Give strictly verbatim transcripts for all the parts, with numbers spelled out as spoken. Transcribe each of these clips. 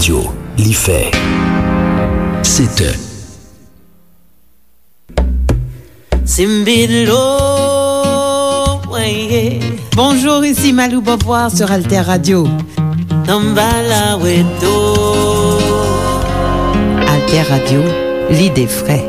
Yo, li fè sèt è. Simbilo, weye. Bonjour, ici Malou Beauvoir sur Alter Radio. Tambala weto. Alter Radio, l'idée vraie.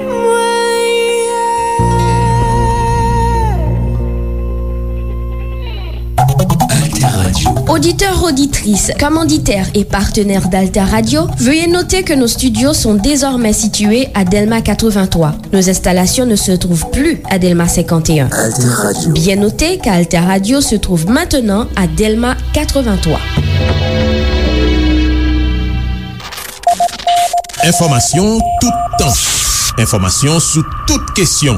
Alter Radio. Auditeurs, auditrices, commanditaires et partenaires d'Alter Radio, veuillez noter que nos studios sont désormais situés à Delma quatre-vingt-trois. Nos installations ne se trouvent plus à Delma cinquante et un. Alter Radio. Bien noter qu'Alter Radio se trouve maintenant à Delma quatre-vingt-trois. Enfòmasyon toutan. Enfòmasyon sou tout kesyon.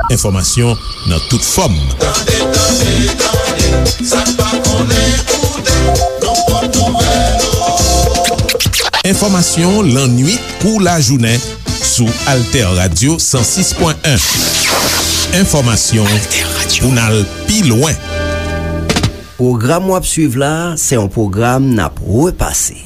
Enfòmasyon nan tout fòm. Tande, tande, tande, sa n pa konnen koute, nan pòt nouvèl yo. Enfòmasyon lannwit kou lajounen sou Alter Radio san sis pwen en. Enfòmasyon pou n al pi lwen. Pwogram w ap swiv la, se yon pwogram n ap repase.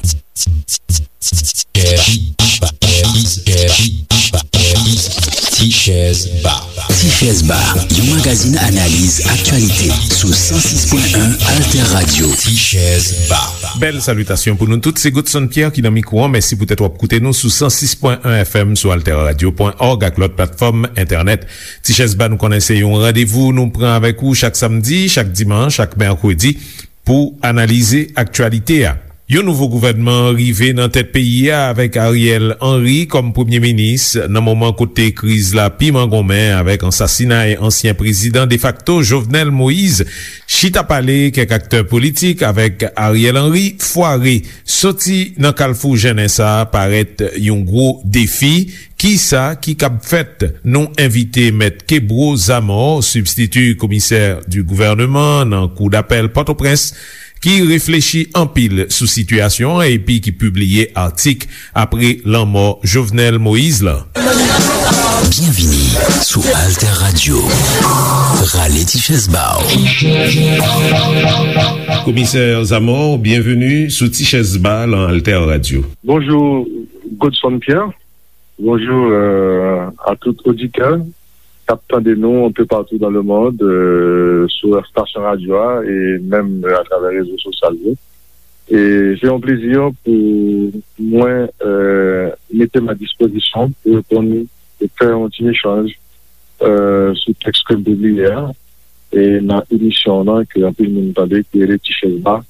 Tichèz Ba. Tichèz Ba, yon magazin analiz aktyalite sou san sis pwen en Alter Radio. Tichèz Ba. Bèl salitasyon pou nou tout. Se Godson Pierre ki nan mikwo an. Mèsi poutèt w ap koute nou sou san sis pwen en F M, sou alter radio pwen org ak lòt platfòm entènèt. Tichèz Ba, nou konnen se yon randevou nou pran avèk ou chak samdi, chak dimanch, chak mèkredi pou analize aktyalite a. Yon nouvo gouvènman rive nan tèt peyi a avèk Ariel Henry kòm premye minis nan moman kote kriz la pi mangonmen avèk ansasinay ansyen prezidan defakto Jovenel Moïse. Chita pale kèk aktè politik avèk Ariel Henry fware. Soti nan kalfou jennen sa a parèt yon gwo defi. Kisa ki kab fèt? Nou envite Mèt Kebro Zamor, sibstiti komisè di gouvèneman nan Kou dapèl Pòtoprens, ki reflechi anpil sou sitiyasyon an epi ki pibliye atik apre lanmò Jovenel Moïse la. Byenvini sou Alter Radio. Rale ti chèz ba w. Komisè Zamor, byenveni sou Ti Chèz Ba lan Alter Radio. Bonjou, Godson Pierre. Bonjou, euh, a tout oditè k ap tande nou un peu partout dans le monde, euh, sou estasyon radyo a e menm, euh, atravè rezo sosyal yo. E se yon plezi pou mwen, euh, mete m a dispozisyon pou reponn e fè yon ti echanj, euh, sou tèks ke m pibliye a, e nan emisyon an ke anpil moun tande, ki rele Ti Chèz Ba,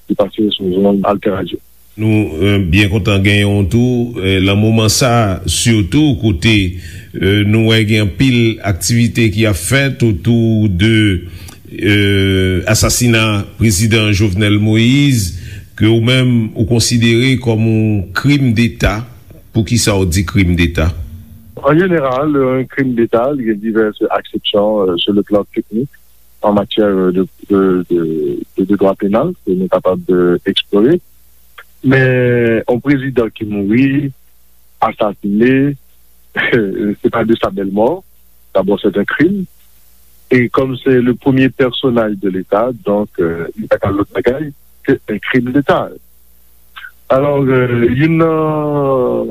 ki pase sou zonn Alter Radio. Nou, euh, byen kontan genyen w tou, euh, lan moman sa, sitou kote, euh, nou wè gen anpil aktivite ki ap fèt otou de, euh, asasina prezidan Jovenel Moïse, ke ou menm ou konsidere kòm yon krim deta. Poukisa w di krim deta? An jeneral, yon krim deta, li gen divès aksepsyon, euh, sur le plan technique, en matière de, de, de, de, de droit pénal, ke nou kapab, euh, eksplore. Men, yon prezidan ki mouri, asasine, se pa de sa bèl mò. D'abord, c'est un crime. Et comme c'est le premier personnage de l'État, donc, euh, li pa ka lòt bagay ke un crime d'État. Alò, euh, youn nan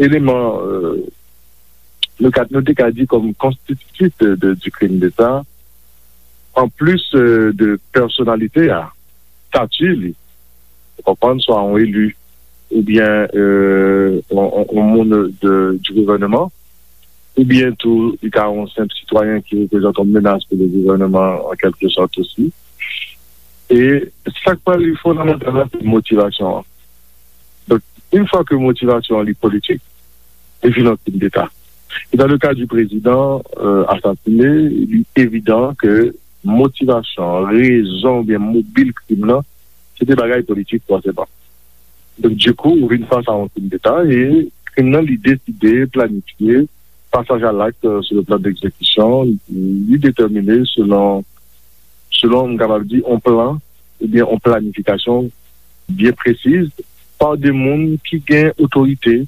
eleman, euh, nou ka, nou te ka di kòm konstititif de, de, du crime d'État, an plis, euh, de pèsonalite a, stati li, ou konprann, swa yon eli, oubyen, euh, yon, yon, yon moun de, du gouvèneman, oubyen tou, li ka yon senp sitwayen ki reprezante yon menas pou le gouvèneman, an kèlke sòt osi. E sa k pral fondamantal la, se motivasyon an. Donk, yon fwa ke motivasyon an li politik, li vin yon krim deta. E dans le cas du président, euh, asasine, li evidan ke motivasyon, rezon oubyen mobil krim nan, se te bagay politik fòseman. Donk, dikou, ou vin fas a yon krim deta e krim nan, li deside, planifye, pasaj a lakt, euh, sur le plan d'exécution, li detèmine selon, selon, m kapab di, yon plan oubyen yon planifikasyon byen presiz pa de moun ki gen otorite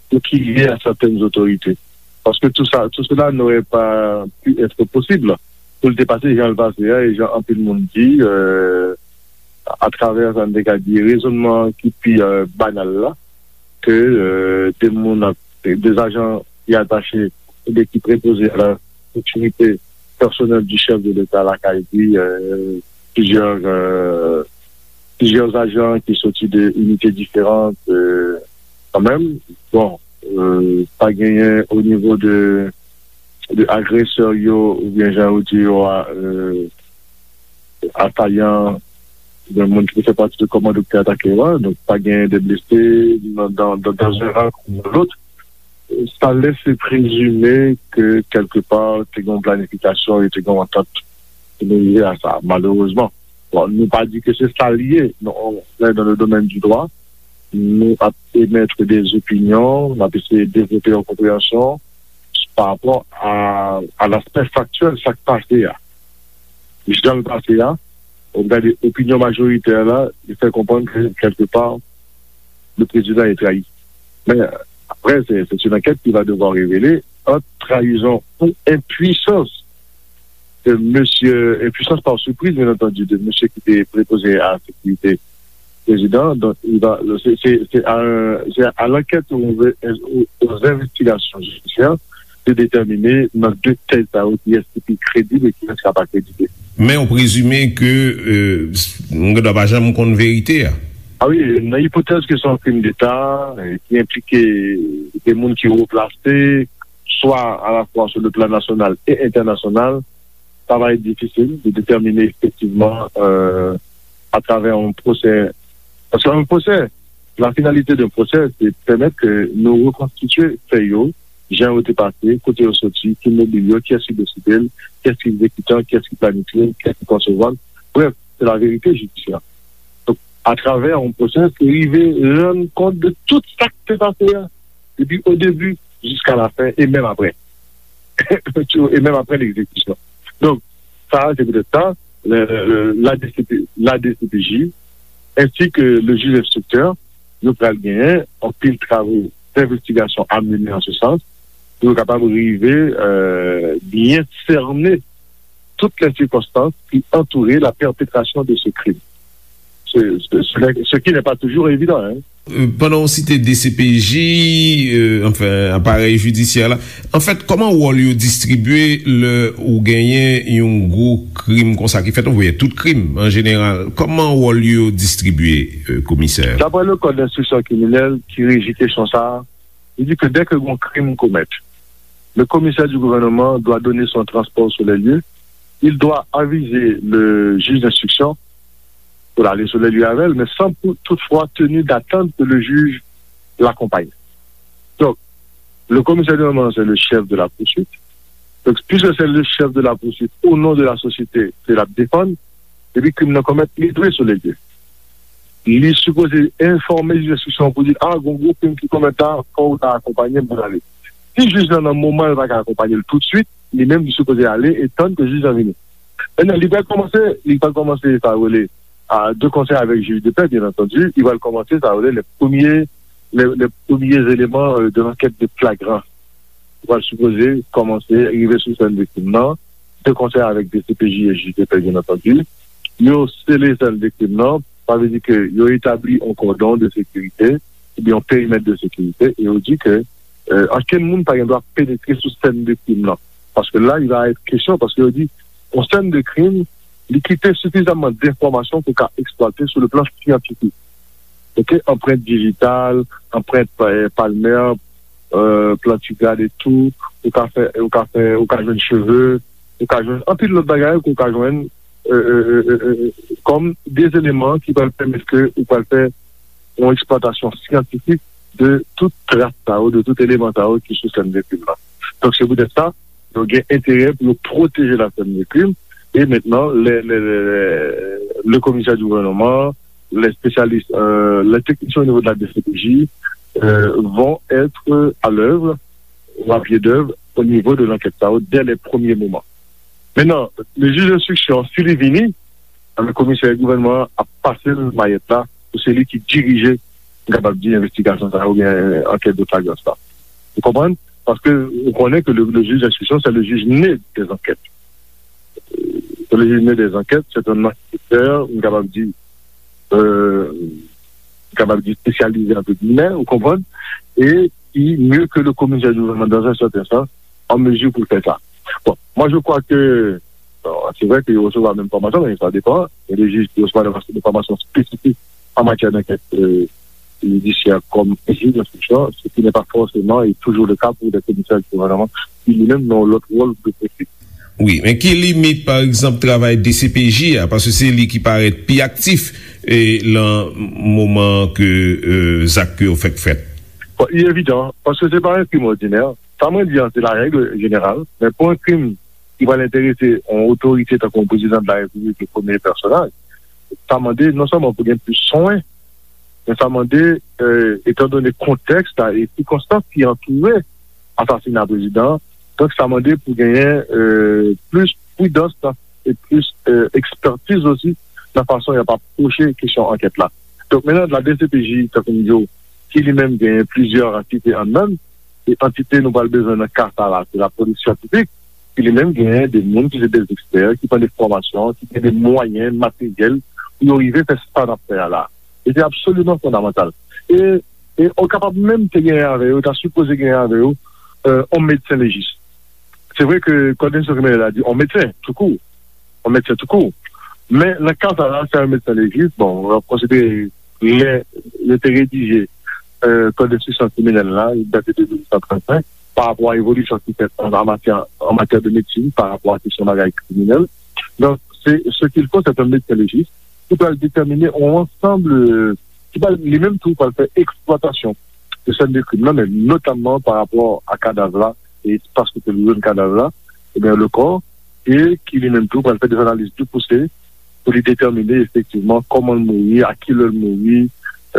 ou ki lye a sètèn otorite. Paske tout sa, tout cela n'aurait pas pu être possible pou l te pase jan l pase a, e jan anpil moun di, euh, atravè sa n te ka di rezonnman ki pi, euh, banal la, ke, euh, de moun ap, de ajan ki atache oubyen ki prepoze à la sécurité personnelle du chef de l'État lakay li, euh, plizyè, euh, plizyè ajan ki soti de inite diferan, euh, kanmenm. Bon, euh, pa genyen o nivo de, de agresè yo, oubyen jan yo di yo a, euh, asayan, oubyen moun ki fè pati de kòmando ki te atake yo a. Donk, pa genyen de blese nan, dans, dans, dans un rang ou dans l'autre. Sa lèse prezime ke kèlkepa te gen yon planifikasyon e te gen yon antant pou nou rive a sa, malerezman. Bon, nou pa di ke se sa l ye, non, on est dans le domaine du droit, nou ap emèt de opinyon, n ap eseye devlope yon konpreyansyon pa rapò a, a l'aspect factuel, sa k pase a. Jan l pase a, ou gade opinyon majoritè la, li fè konprann ke kèlkepa, le président est trahi. Men, apre, se, se yon ankèt ki va devwa revele ant trayizon ou enpwisans de mesye, enpwisans pa sipriz, byen antandi, de mesye ki te prepoze a sekirite prezidan. Donk, li va, se, se, se a, se a l'ankèt ou, ou, aux investigations judiciaires de déterminer nan de tèt sa yo kiyès ki pi kredib e kiyès ki pa kredib. Men ou prezime ke, euh, m gen dwa pa janm konn verite a. A wi, nan ipotèz ke se yon krim deta, euh, ki enplike de moun ki wo plase, swa alafwa sou le plan nasyonal e entènasyonal, sa va être difficile de déterminer effectivement, euh, à travers un procès. Parce qu'un procès, la finalité d'un procès, c'est de permettre que nous reconstituer fè yo, jan yo te pase, kote yo soti, ki mobil yo, kiyès ki deside l, kiyès ki egzekitan, kiyès ki planifye l, kiyès ki konsevwa l. Bref, c'est la vérité judiciaire. Donk, atravè yon pwosè, se rive rann kont de tout sa ki te pase a, depi o debi jiska la fen, e menm apre. E menm apre legzekisyon. Donk, sa, se poutèt sa, le, le, le, la D C P, la D C P J, ensi ke le jij enstriktè, yo pral genyen anpil travo d'investigasyon a mennen an se sans, pou yo kapab rive, euh, byen sènen tout les circonstances qui entouraient la perpétration de ce crime. Ce, ce, ce n'est- ce qui n'est pas toujours évident, hein. Euh, pandan w site D C P J, euh, anfen, aparèy jidisyè la, anfèt, kòman wòl yo distribye lè ou genyen yon gwo krim konsa ki fèt, oubyen tout krim an jeneral? Kòman wòl yo distribye, euh, komisè? D'après le code d'instruction criminelle ki reji kesyon sa a, il dit que dès que gon crime commet, le commissaire du gouvernement doit donner son transport sur les lieux, il doit aviser le juge d'instruction pou l ale sou les lieux avè l, men san pou, toutfwa tenu d'attendre que le juge l'accompagne. Donc, le commissaire du gouvernement, c'est le chef de la poursuite. Donc, puisque c'est le chef de la poursuite, au nom de la société, ke l ap defann, depi krim nan komèt, li dwe sou les lieux. Li sipoze enfòme jij enstriksyon pou di, a, gon gwo krim ki komèt la, fò w ta akonpanye m pou n ale. Si jij lan nan moman l pa ka akonpanye l toutswit, li menm li sipoze ale e tann ke jij lan vini. Mentnan, li pral kòmanse, li pral kòmanse sa yo rele, a, de concert avec juge de paix, bien entendu, li pral kòmanse sa yo rele les premiers, les, les premiers éléments, euh, de l'enquête de flagrance. Li pral sipoze kòmanse rive sou sèn viktim nan, de concert avec D C P J et juge de paix, bien entendu. Yo sele sèn viktim nan, sa vle di ke yo etabli yon kòdon de sekirite, oubyen yon perimèt de sekirite, e yo di ke, euh, ankenn moun pa gen dwa penetre sou sèn de krim nan. Paske la, il va être question, paske yo di, yon sèn de krim, li kite sifizamman denfòmasyon pou ka eksplwate sou le plan syantifik. Ok, anprent dijital, anprent, euh, palmè, euh, plantigrad etou, ou ka fè, ou ka fè, ou ka jwenn cheve, ou ka jwenn anpil lòt bagay ke ou ka jwenn, euh, euh, euh, euh, euh, kòm de eleman ki pral pèmèt ke ou pral fè yon eksplwatasyon syantifik de tout tras sa yo, de tout eleman sa yo ki sou sèn de krim nan. Donk, se poutèt sa, yo gen enterè pou yo pwoteje la sèn de krim. E mentnan, le, le, le, le, le komisè di gouvènman, les spécialistes, euh, les techniciens au niveau de la D C P J, euh, vont être à l'œuvre, ou à pied d'œuvre, au niveau de l'enquête sa yo, dès les premiers moments. Mentnan, le jij enstriksyon, si li vini, anben, komisè gouvènman an ap pase l mayèt la, pou se li ki dirije, m kapab di, envestigasyon sa yo, oubyen ankèt de flagrans la. Ou konprann? Paske ou konnen ke le, le juge d'instruction, c'est le juge né des enquêtes. Euh, c'est le juge né des enquêtes, c'est un enquêteur, m kapab di, euh, kapab di, espesyalize, entre guillemets, ou konprann, e ki, mieux que le commissaire du gouvernement dans un certain sens, en mesure pour faire ça. Bon, moi je crois que, bon, c'est vrai que il reçoit même formation, mais ça dépend. Il y a des juges qui reçoivent des formations spécifiques en matière d'enquête euh, judiciaire comme juge d'instruction, ce qui n'est pas forcément et toujours le cas pour des commissaires du gouvernement qui lui-même n'ont l'autre rôle de poursuite. Wi, men ki limit, pa egzanp, travay D C P J a, paske se li ki parèt pi aktif e, lan moman ke e, zak ke yo fèk fèt? Bon, il est évident, parce que c'est pas un crime ordinaire. Sa mwen di an, se la règle générale, men pou yon krim ki pral enterese yon otorite tankou yon prezidan de la repiblik, le premye pèsonaj, sa mande non sèlman pou gen plis swen, men sa mande, euh, etan done kontèks la e sikonstans ki antoure asasina prezidan an, donk sa mande pou genyen euh, plis pridans e plis euh, ekspertiz osi nan fason y ap apwoche kesyon ankèt la. Donk menm la D C P J, tankou m di w, ki li menm genyen plizyè antite anndan l, e antite nou pral bezwen nan ka sa la, se lapolis syantifik, ki li menm genyen de moun ki se de ekspè, ki pran de fòmasyon, ki gen de mwayen materyèl pou yo rive fè sa n ap fè a la. E se absoliman fondamantal. E, e ou kapab menm te genyen avè yo, ta sipoze genyen avè yo, euh, yon medsen lejis. Se vre ke kòd enstriksyon kriminèl la di yon medsen, toukou. Yon medsen toukou. Men nan ka sa la, se yon medsen lejis, bon, w ap konsidere lè yo te redije euh, kòd enstriksyon kriminèl la, li date de mil nèf san trannsenk, pa rapò a evolisyon ki fèt an, an matyè, an matyè de medsin, pa rapò a kesyon bagay kriminèl. Donk, se, ce qu'il faut, c'est un médecin légiste ki pral detèmine yon ansanm, euh, ki pral, li menm tou, pral fè eksplwatasyon de sèn de krim nan, men notamman pa rapò a kadav la, e espas kote nou jwenn kadav la, ebyen, le corps, e ki li menm tou pral fè de analiz pi pouse pou li detèmine efektivman kòman l mouri, a ki lè l mouri,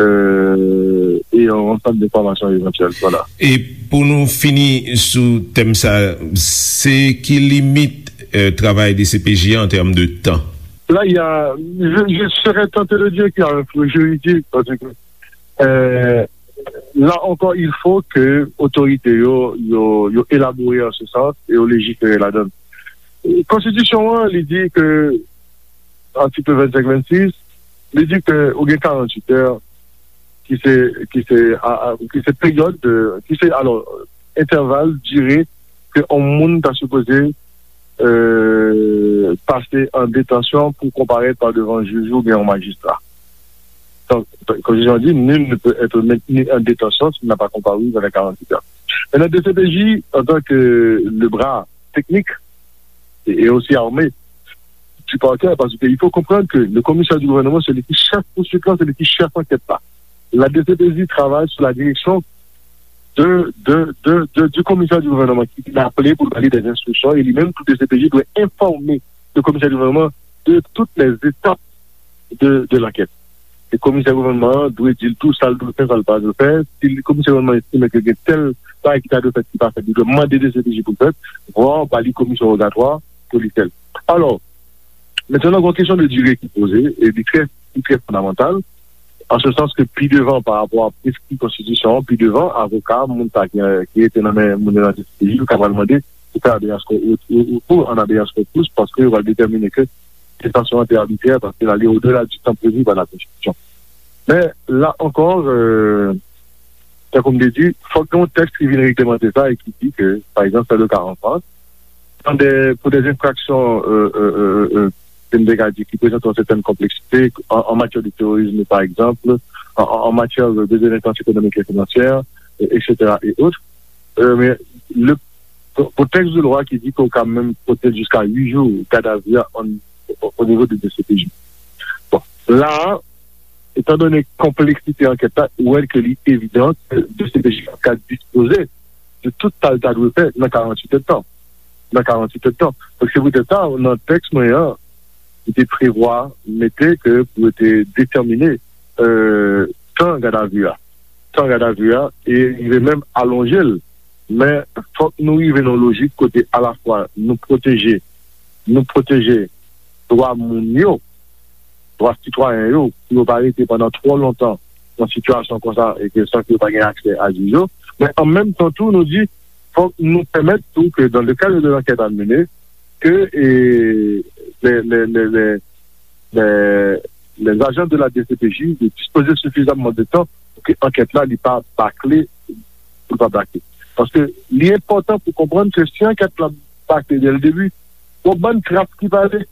euh, e yon ansanm de enfòmasyon evantyèl. Vwala. E pou nou fini sou tèm sa, se ki limit euh, travay D C P J a an tèm de tan? Là, il y a, je, je serais tenté de dire qu'il y a un flou juridique, parce que euh, là encore, il faut que autorités yo, yo, yo élaborer en ce sens et yo légiférer là-dedans. Konstitisyon an, li di ke, atik vennsenk vennsis, li di ke ou gen karanntuit è, ki se, ki se, a, a, ki se peryòd, de, ki se, alò, entèval, dire, ke yon moun ta sipoze euh, pase an detansyon pou konparèt pa devan jij oubyen yon majistra. Donk, konstitisyon an di, nul ne peut être maintenu en détention s'il n'a pas comparu dans les quarante-huit heures. Maintenant, D C P J, en tant que le bras technique et, et aussi armé du parquet, parce qu'il faut comprendre que le commissaire du gouvernement, c'est lui qui chef poursuite là, c'est lui qui chef enquête là. La D C P J travaille sous la direction de, de, de, de, du commissaire du gouvernement ki vin aple pou l ba li des instructions, e li menm tou D C P J dwe enfòme le commissaire du gouvernement de toutes les étapes de, de l'enquête. E komisè gouvènman an dwe di l tou sa l dwe fè, sa l pa dwe fè. Si komisè gouvènman an estime ke gen tèl bagay ki ta dwe fèt ki pa fèt, li dwe mande D C P J pou l fèt, vwa ba li komisyon wogatwa pou li fè l. Alò, mentnan gen yon kesyon de dire ki poze, e li trè, li trè fondamantal, an se sans ke pi devan pa rapò a preskri konstitisyon an, pi devan, avoka, moun sa ki, ki rete nan men moun yo nan D C P J, yo ka pral mande pou fè habeas corpus, ou, ou, ou an habeas corpus, paske yo pral detèmine ke detansyon an te abitrè, paske l ale odela di tan previ pa la konstitisyon. Men, la ankò, euh, tankou m te di, fòk gen yon tèks ki vin reglemante sa e ki di ke, pa egzanp, se le ka an Frans, dans des, pour des infractions, euh, euh, euh, euh, ke m te ka di, ki prezante yon sètèn konpleksite, an, an matyè de terorisme, pa egzanp, an, an, an matyè de délinquance économique et financière, euh, et cetera et autres. Euh, men le, pou, pou tèks de lwa ki di ke w ka menm pote l jiska uit jou gadavi a an, o, o nivo de D C P J. Bon, la a, etan done konpleksite ankèt la, ou wè ke li evidan ke D C P J ka dispoze de tout sa l ta dwe fè nan karanntuit èdtan. Nan karanntuit èdtan. Donk, se poutèt sa, nan tèks mwen an, li te prevwa mete ke pou yo te detèmine euh, tan gadavi a. Tan gadavi a, e rive menm alonje l. Men, fòk nou rive nan lojik kote alafwa nou pwoteje, nou pwoteje dwa moun yo, dwa sitwayen yo, pou yo pa rete pandan twò lontan nan sitiyasyon konsa e ke san ke yo pa gen aksè a jij yo. Men an menm tan tou, nou di, fòk nou pèmèt tou ke dans le cadre de l'enquête à mener, ke e, les, les, les, les, les, les agents de la D C P J de dispoze sifizamman de tan pou ke ankèt la li pa bakle, pou l pa bakle. Paske li enpòtan pou konprann ke si ankèt la bakle dès le début, gon bann tras ki prale.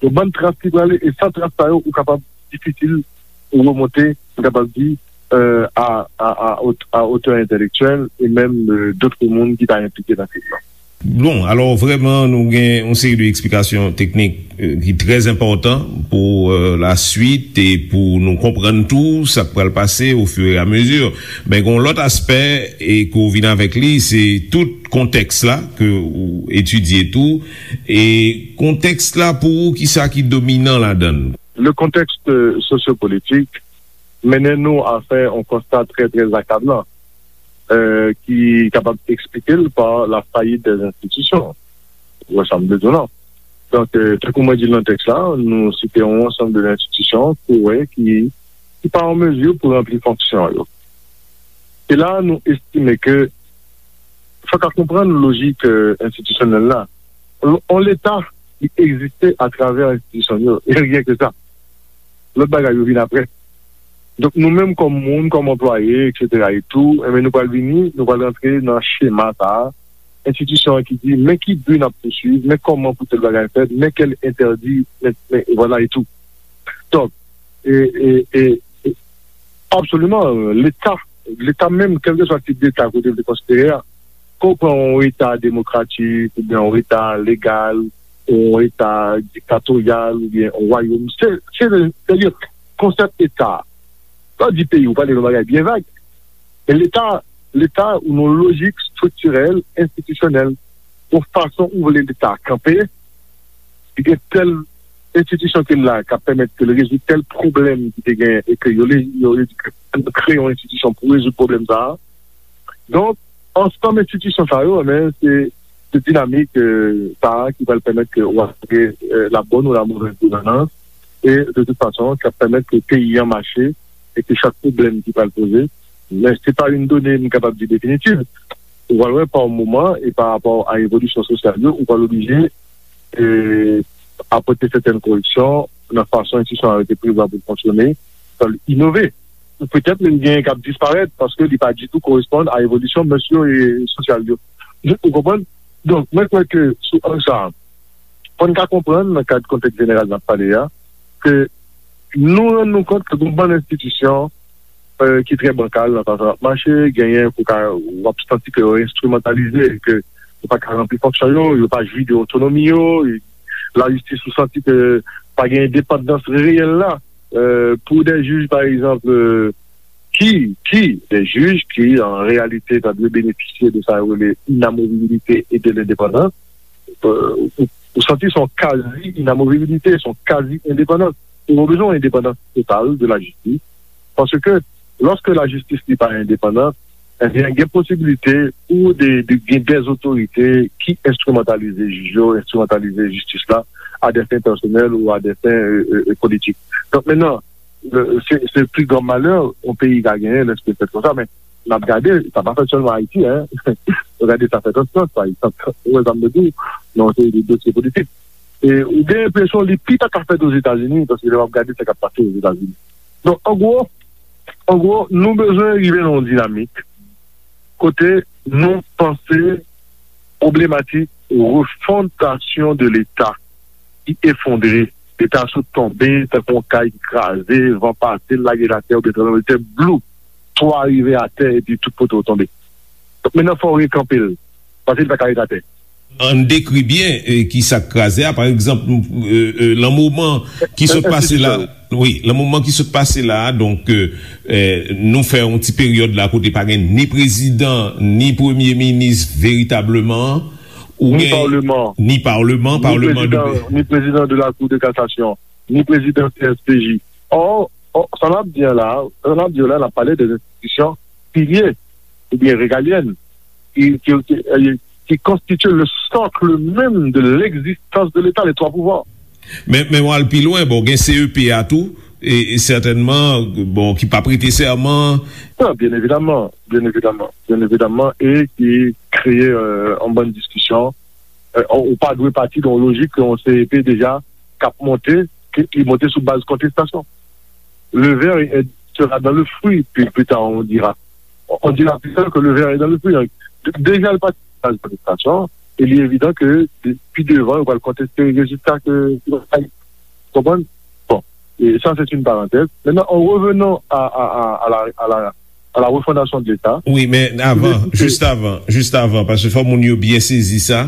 Gon bann tras ki prale, e san tras sa yo, ou kapab difisil pou remonte, ou kapab di, euh, à, à, à, haute- à hauteur intellectuelle et même euh, d'autres moun ki ta enplike nan krim nan. Bon, alò vrèman nou gen yon seri de eksplikasyon teknik euh, ki trè enpòtan pou euh, la swit e pou nou konprann tou sa k pral pase au fur et à mesure. Men gen yon lòt aspè e ke w vin avèk li, se tout kontèks la ke ou etidye tou. E kontèks la pou ou, kisa ki dominan ladan l? Le contexte sociopolitique mennen nou a fè yon konsta trè, trè akablan, euh, ki kapab eksplike l pa la fayit dè enstitisyon. Ou wè sa m vle di w la. Donk, euh, tankou mwen di l nan tèks la, nou site yon ansanm de enstitisyon ke w wè ki, ki pa an mezi pou ranpli fonksyon yo. E la, nou estime ke fòk a konprann lojik euh, enstitisyonèl la. On, on Leta ki egziste atravè enstitisyon yo, e ryen ke sa. Lòt bagay yo vin apre. Donk nou menm kòm moun, kòm anplwaye, et cetera et tout, enben nou pral vini, nou pral rantre nan chema sa a. Enstitisyon an ki di, men ki bi n ap pouswiv, men kòman pou tèl bagay fèt, men kèl entèdi, men, men vwala e tou. Donk, e, e, e, e, absoliman, Leta, Leta menm, kèlkeswa tip Leta kote l te konsidere a, ke w pran yon Eta demokratik, oubyen yon Eta legal, yon Eta diktatoryal, oubyen yon wayòm, se, se, se, se konsèp Eta. Lè w di peyi, ou pale yon bagay byen vag. E Leta, Leta, ou nan lojik estriktirèl, enstitisyonèl, yon fason ou vle Leta kanpe, li gen tèl enstitisyon ke l la k ap pèmèt ke l rezoud tèl pwoblèm ki te gen e ke yo, yo, yo kreye yon enstitisyon pou rezoud pwoblèm sa a. Donk, ansanm enstitisyon sa yo, men, se, se dinamik euh, sa a ki pral pèmèt ke w asire euh, la bonne ou la mauvaise gouvernance e de tout fason, k ap pèmèt ke peyi an mache e ke chak pwoblèm ki pral poze, men se pa yon done m kapab di definitiv. Ou pral wè pa yon moman e pa rapò a evolisyon sosyal yo, ou pral oblije e, apòte sètèn koreksyon nan fason enstitisyon an yo te prevwa pou l fonksyone, fò l inove. Ou petèt menm genyen k ap disparèt paske li pa ditou koresponn a evolisyon mès yo e sosyal yo. Ou konprann? Donk, mwen kwè ke sou ang sa a, fò n ka konprann nan kad kontèks jeneral n ap pale a, ke nou rann nou kont ke gon bann enstitisyon euh, ki trè bankal nan fason y ap mache, genyen pou ka w ap santi ke yo enstrimantalize, ke yo pa ka ranpli fonksyon yo, yo pa jwi de otonomi yo, lajistis ou santi ke pa gen endepandans reyèl la euh, pou de jij pa egzanp euh, ki, ki de jij ki an reyalite ta dwe benefisye de sa yo rele inamovibilite e de lendepandans euh, ou, ou santi se yon kazi inamovibilite, se yon kazi endepandans. Ou bezwen yon endepandans total de lajistis. Paske lòske lajistis li pa endepandan, ebyen gen posibilite pou de, de, gen dèzotorite ki enstrimantalize jij yo, enstrimantalize jistis la a dè fen pèsonèl ou a dè fen euh, euh, politik. Donk mennan, euh, se, se pli gran malè yon peyi ka genyen lèske l fèt konsa, men n ap gade, sa pa fèt sèlman Ayiti, en. Nou gade sa fèt an Frans, pa egzanp. Ou wè sa m vle di w, nan yon seri de dosye politik. E ou gen enpresyon li pi ta ka fèt Ozetazini, paske lè w ap gade sa k ap pase Ozetazini. Donk, an gwo, an gwo, nou bezwen rive nan yon dinamik kote nou panse pwoblematik refondasyon de Leta ki efondre, Leta sot tonbe tankou yon kay ki kraze, van pase, l lage l atè, oubyen tranblemanntè, blou, twa rive atè, epi tout kote w tonbe. Donk, mennan fò w rekanpe l, paske li pa ka ret atè. Ann dekri byen eh, ki sa k kraze a. Pa egzanp, eh, eh, lan moman ki sot pase la, wi, lan moman ki sot pase la, donk, eh, eh, nou fè yon ti peryòd la kote pa gen ni prezidan, ni premye minis veritableman, ou Ni gen paleman. Ni paleman, Ni paleman de prezidan, ni prezidan de la Cour de cassation, ni prezidan C S P J. Or, or, sa n ap di an la, sa n ap di yo la, n ap pale de enstitisyon pilye oubyen regalyèn ki, ki, ki, eh, ki konstitye le socle même de l'existence de l'État, les trois pouvoirs. Men, men w al pi lwen, bon, gen C E P a tou, e, e sètènman, bon, ki p ap prete sèman. Non, byen evidaman, byen evidaman, byen evidaman, e ki kreye euh, yon bann diskisyon. Euh, ou pa dwe pati nan yon lojik ke yon C E P deja k ap monte, ke li monte sou baz kontestasyon. le ver est, sera dans le fruit, puis plus tard on dira, on dira plus tard que le ver est dans le fruit. Donc, d- déjà, le parti dans l'administration, il est évident que de- plus devant, on va contester les résultats que, que va gagner. Vous comprenez? Bon, et ça, c'est une parenthèse. Maintenant, en revenant à, à, à, à la, à la, à la refondation de l'État, Wi, men avan, jis avan, jis avan, paske fò moun yo byen sezi sa,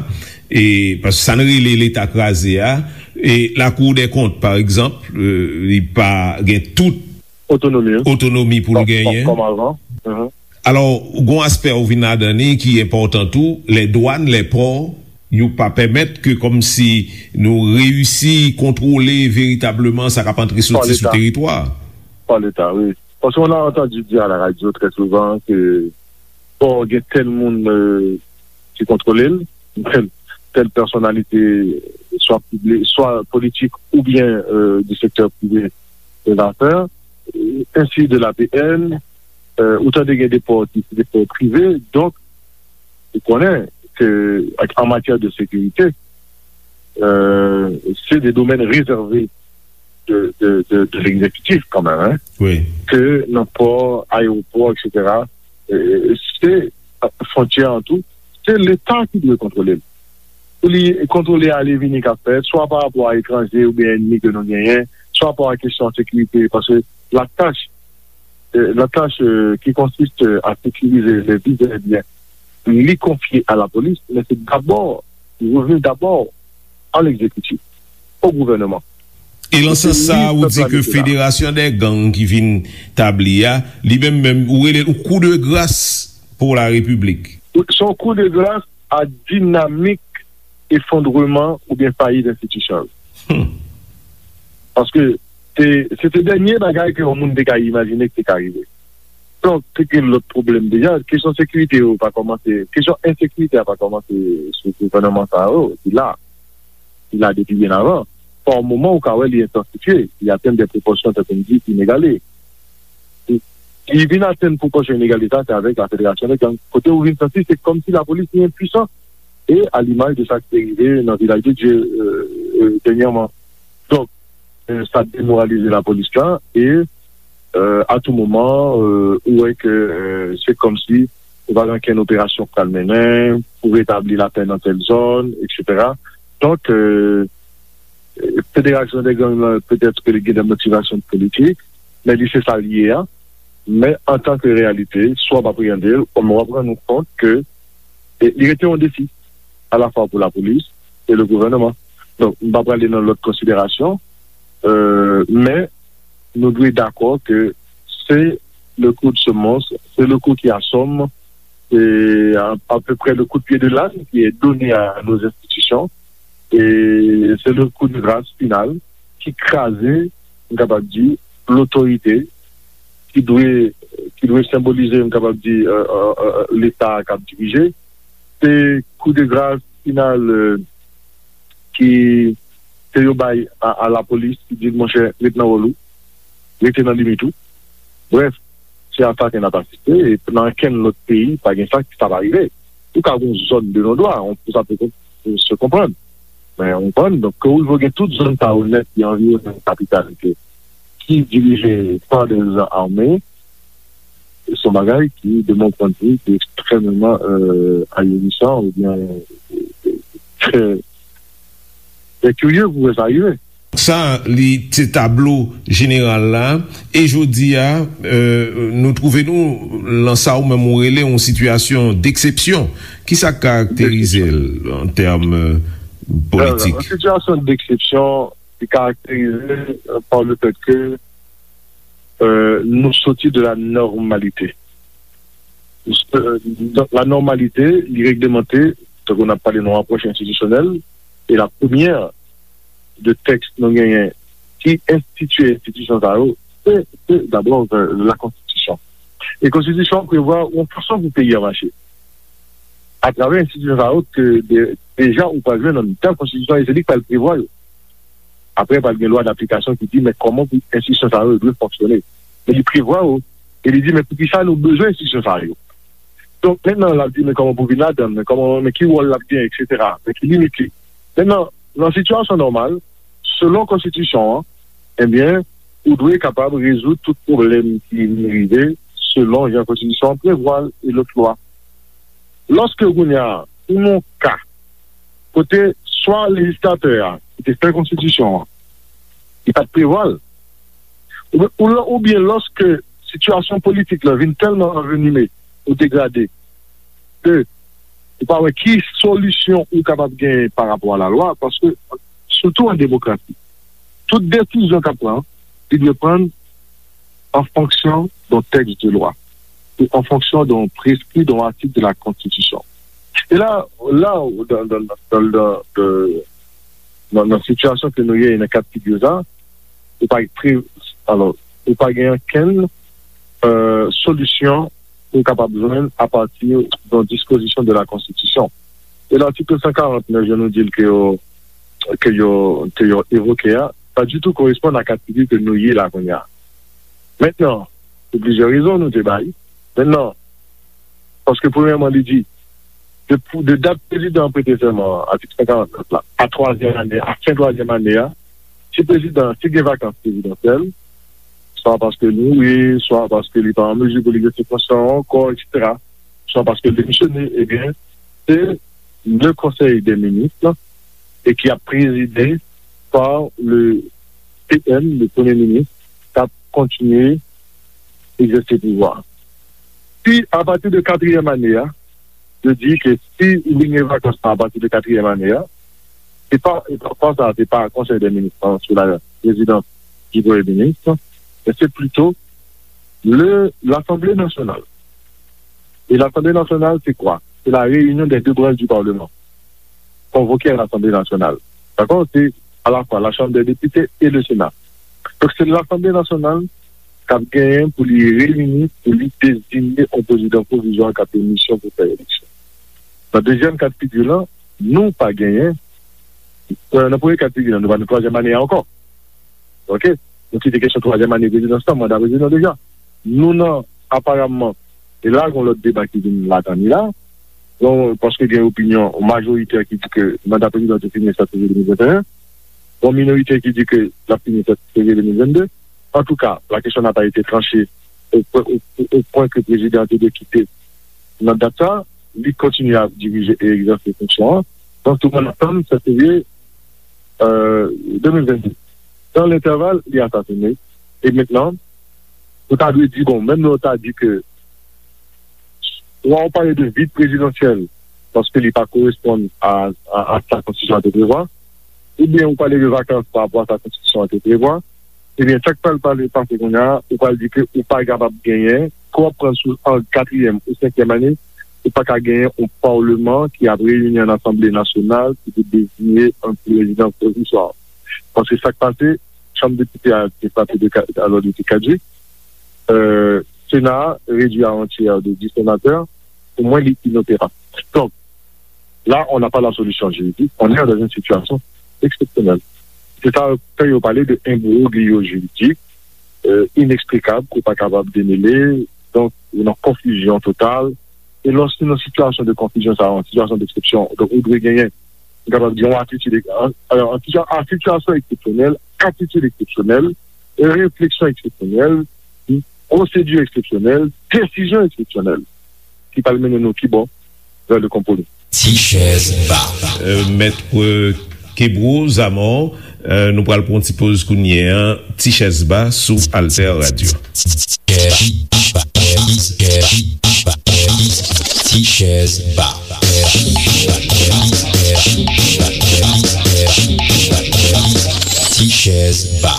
e paske sa n rele Leta kraze a, e Lakou dè Kont, pa egzanp, euh, li pa gen tout otonomi, hein, otonomi pou l genyen. Comme avant. Mhm. Alò, gon aspè ou vin ladan li ki enpòtan tou, lè dwàn, lè pò, yo pa pèmèt ke kòmsi nou reyisi kontwole veritableman sa k ap antre soti sou teritwa. Par l'État, oui. Parce qu'on a entendu dire à la radio très souvent que bon, il y a tel monde euh, qui contrôle, tel, telle personnalité, soit publique, soit politique ou bien euh, du secteur privé des affaires, euh, ainsi de l'A P N, euh, autant de des ports, des ports privés. Donc, vous connaissez que en matière de sécurité, euh, c'est des domaines réservés de, de, de, de l'exécutif quand même, hein, Wi. ke nan pò, ayewopò, et cetera. Euh, se fwontyè an tou, se Leta ki dwe kontwole l. Pou li kontwole ale vini k ap fèt, swa pa rapò a etranje oubyen ènmi ke nou genyen, swa pa rapò a kesyon sekirite, paske la tâche, euh, la tâche euh, qui consiste à sécuriser les vies et les biens, li konfye a la police, mais c'est d'abord, il revient d'abord à l'exécutif, au gouvernement. E lan sans sa, ou di ke Federasyon dè Gang ki vin tabli a, li menm menm, ou rele l kou de gras pou la Repiblik. Se yon kou de gras a dinamik efondreman oubyen fayit enstitisyon yo. Paske se se te dènye bagay ke yon moun te ka imajine ki te ka rive. Donk, te gen lòt pwoblèm deja. Kesyon sekirite yo pa kòmanse, kesyon ensekirite a pa kòmanse sou gouvènman sa yo, ki la. Ki la depi byen avan. Pa yon moman ou ka wè li entansifye, li atenn de pwopòsyon tankou m di inegale. Li vin atenn pwopòsyon inegale sa, se avèk la federasyon de gang. Kote ou vin santi se kòmsi lapolis li enpwisan. E a limaj de sa ki te rive nan Vilaj de Dye euh, euh, dènyèman. Donk, euh, sa demoralize lapolis la e euh, a tou moman euh, ou wè ke euh, se kòmsi ou pa gen okenn operasyon k pral mennen pou retabli lapè nan tèl zòn, et cetera. Donk, euh, federasyon de gang nan petèt ke li gen de motivasyon politik, men li se sa l ye a. Men antanke reyalite, swa w ap apreyande l, kòm w ap rann ou kont ke e, li rete yon defi, alafwa pou lapolis e le gouvènman. Donk, m pa prale nan lòt konsiderasyon, euh, men nou dwe dakò ke c'est le coup de semonce, c'est le coup qui assomme, c'est à, à peu près le coup de pied de l'âne qui est donné à nos institutions, et c'est le coup de grâce final ki kraze, m kapab di, lotorite ki dwe ki dwe senbolize, m kapab di, euh, euh, euh, Leta k ap dirije. Se kou de gras final euh, ki ke yo bay a, a lapolis ki di l, monchè, ret nan wòl ou, rete nan limit ou. Brèf, se a sa ke n ap asiste, e nan okenn lòt peyi, pa gen sa ki sa pa rive. Ou ka gen yon zòn de non dwa, on, sa pe se konprann. Men, ou konprann, donk, ke ou rive gen tout zòn sa yo nèt ki anviwonnen kapital ke ki dirije pa de zan ame, se yon bagay ki, de mon point de vue, ki ekstrèmman euh, ahurissant oubyen euh, trè trè kirye pou wè sa rive. Sa, li se tablo jeneral la. E jodi a, euh, nou twouve nou lan sa ou menm ou rele yon sitiyasyon deksepsyon. Kisa k karakterize l an tèm euh, politik? Yon sitiyasyon deksepsyon ki karakterize euh, par le fait que euh, nou soti de la normalité. Euh, donc, la normalité, li reglemante, tankou n ap pale nan apwòch enstitisyonèl, e la premyè de tèks nou genyen ki enstitye enstitisyon sa yo, se, se dabò euh, la konstitisyon. E konstitisyon an prevwa yon fason pou peyi a mache. Atravè enstitisyon sa yo ke de, deja ou pral jwenn nan mitan konstitisyon e se li k pral prevwa yo. Apre, pral gen lwa daplikasyon ki di men kòman pou enstitisyon sa yo dwe fonksyone. Men li prevwa yo, e li di men poukisa nou bezwen enstitisyon sa yo. Donk, mentnan, l ap di men kòman pou vin ladan l, men kòman, men ki wòl l ap genyen, et cetera. Men ki limit li. Mentnan, nan sitiyasyon nòmal, selon konstitisyon an, ebyen, ou dwe kapab rezoud tout pwoblèm ki vin rive selon jan konstitisyon an prevwa l e lòt lwa. Lòske kounye a, ou nan yon ka kote swa lejislatè a ki te fè konstitisyon an, li pa t prevwa l, oubyen, oubyen lòske sitiyasyon politik la vin tèlman anvenime ou degrade ke ou pa wè ki solisyon ou kapab genyen pa rapò a lalwa, paske, sitou an demokrasi, tout desizyon k ap pran, li dwe pran an fonksyon d'un texte de loi, ou an fonksyon d'un prescrit, d'un article de la Constitution. E la, la, dans, dans, dans, dans, dans, dans, dans sitiyasyon ke nou ye, nan ka figi sa, ou pa pre, alò, ou pa gen okenn, euh, solisyon pou w kapab jwenn apati de yon dispozisyon de la Konstitisyon. E latik san karant, jan nou di l ke yo, ke yo, ke yo evoke a, pa ditou koresponn a ka figi ke nou ye la kounye a. Mentnan, pou plizyè rezon nou te bay. Mentnan, paske premyèman, li di, de, de dat prezidan an prete sèman an, atik san karant nèf la, a twazyèm ane, a fen twazyèm ane a, si prezidan, si gen vakans prezidansyèl, swa paske li mouri, swa paske li pa an mezi pou li egzèse fonksyon an ankò, et cetera, swa paske l demisyone, ebyen, se le Conseil des ministres, e ki ap prezide par le P M, le Premye Minis, k ap kontinye egzèse pouvwa. Si, apati de katriyèm ane a, yo di ke si ou vin gen vakans lan apati de katriyèm ane a, se pa, e pa, pa sa, se pa Konsèy dè Minis lan sou la prezidans di Premye Minis, men se plito le, Lasanble Nasyonal. E Lasanble Nasyonal, se kwa? Se la réunion des deux branches du Parlement. Convoqué à l'Assemblée nationale. Dakò? Se alafwa la Chambre des députés et le Sénat. Donk, se Lasanble Nasyonal k ap genyen pou li reyini, pou li deziye yon prezidan pwovizwa k ap gen misyon pou fè eleksyon. Nan dezyèm ka de figi lan, nou pa genyen, euh, nan premye ka de figi lan, nou pa nan twazyèm ane a ankò. Oke? Nou kite kesyon twazyèm ane prezidans lan, manda prezidan deja. Nou nan, aparamman, e la, gen lòt deba ki vin ladan li la. Donk, paske gen opinyon majorite ki di ke manda prezidan te fini sèt fevriye de mil venteyen. Gen minoritè ki di ke l ap fini sèt fevriye de mil vennde. Antouka, la question n'a pas été tranchée au, au, au point que prezidan an te dwe kite nan dat sa. Li kontinye ap dirije e egzèse fonksyon an. Donk, tout moun ap tann sèt fevriye, euh, de mil vennde. Dans l'intervalle, li asasine. E mentnan, ou ta dwe di, bon, menm lè w ta di ke swa ou pale de vid prezidansyèl, paske li pa koresponn a, a, a sa konstitisyon an te prevwa, oubyen ou pale de vakans pa rapò a sa konstitisyon an te prevwa, ebyen, sa k pral pale, pase kounye a, ou pral di ke ou pa kapab genyen, ke w ap pran sou an katriyèm ou senkyèm ane, ou pa ka genyen yon palman ki ap reyini an Asanble Nasyonal ki pou deziye yon prezidan pwovizwa. Paske sa k pase, Chanm Depite a te frape de ka-, alò, li te kadjik. Euh, Sena a redui a yon tyè de dis senatè. Pou mwen, li inoperab. Donk, là, on n'a pas la solution juridique, on est dans une situation exceptionnelle. C'est ça, quand ils ont parlé de imbroglio juridique, euh, inexplicable, qu'on pas capable de démêler, donc, une confusion totale. E lòske nan sitiyasyon de konfizyon sa, yon sitiyasyon d'exception, donk ou dwe genyen, m kapab di, yon atitid, an, an, an sitiyasyon eksepsyonèl, atitid eksepsyonèl, refleksyon eksepsyonèl, pwosedi eksepsyonèl, desizyon eksepsyonèl, ki pral mennen nou ki bò? Vè le konpwomi. Ti chèz ba. Euh, Mèt, euh, Kebro Zamò, euh, nou pral pran yon ti poz kounye a, Ti chèz ba sou Alter Radio. Ti chèz ba. Ti chèz ba.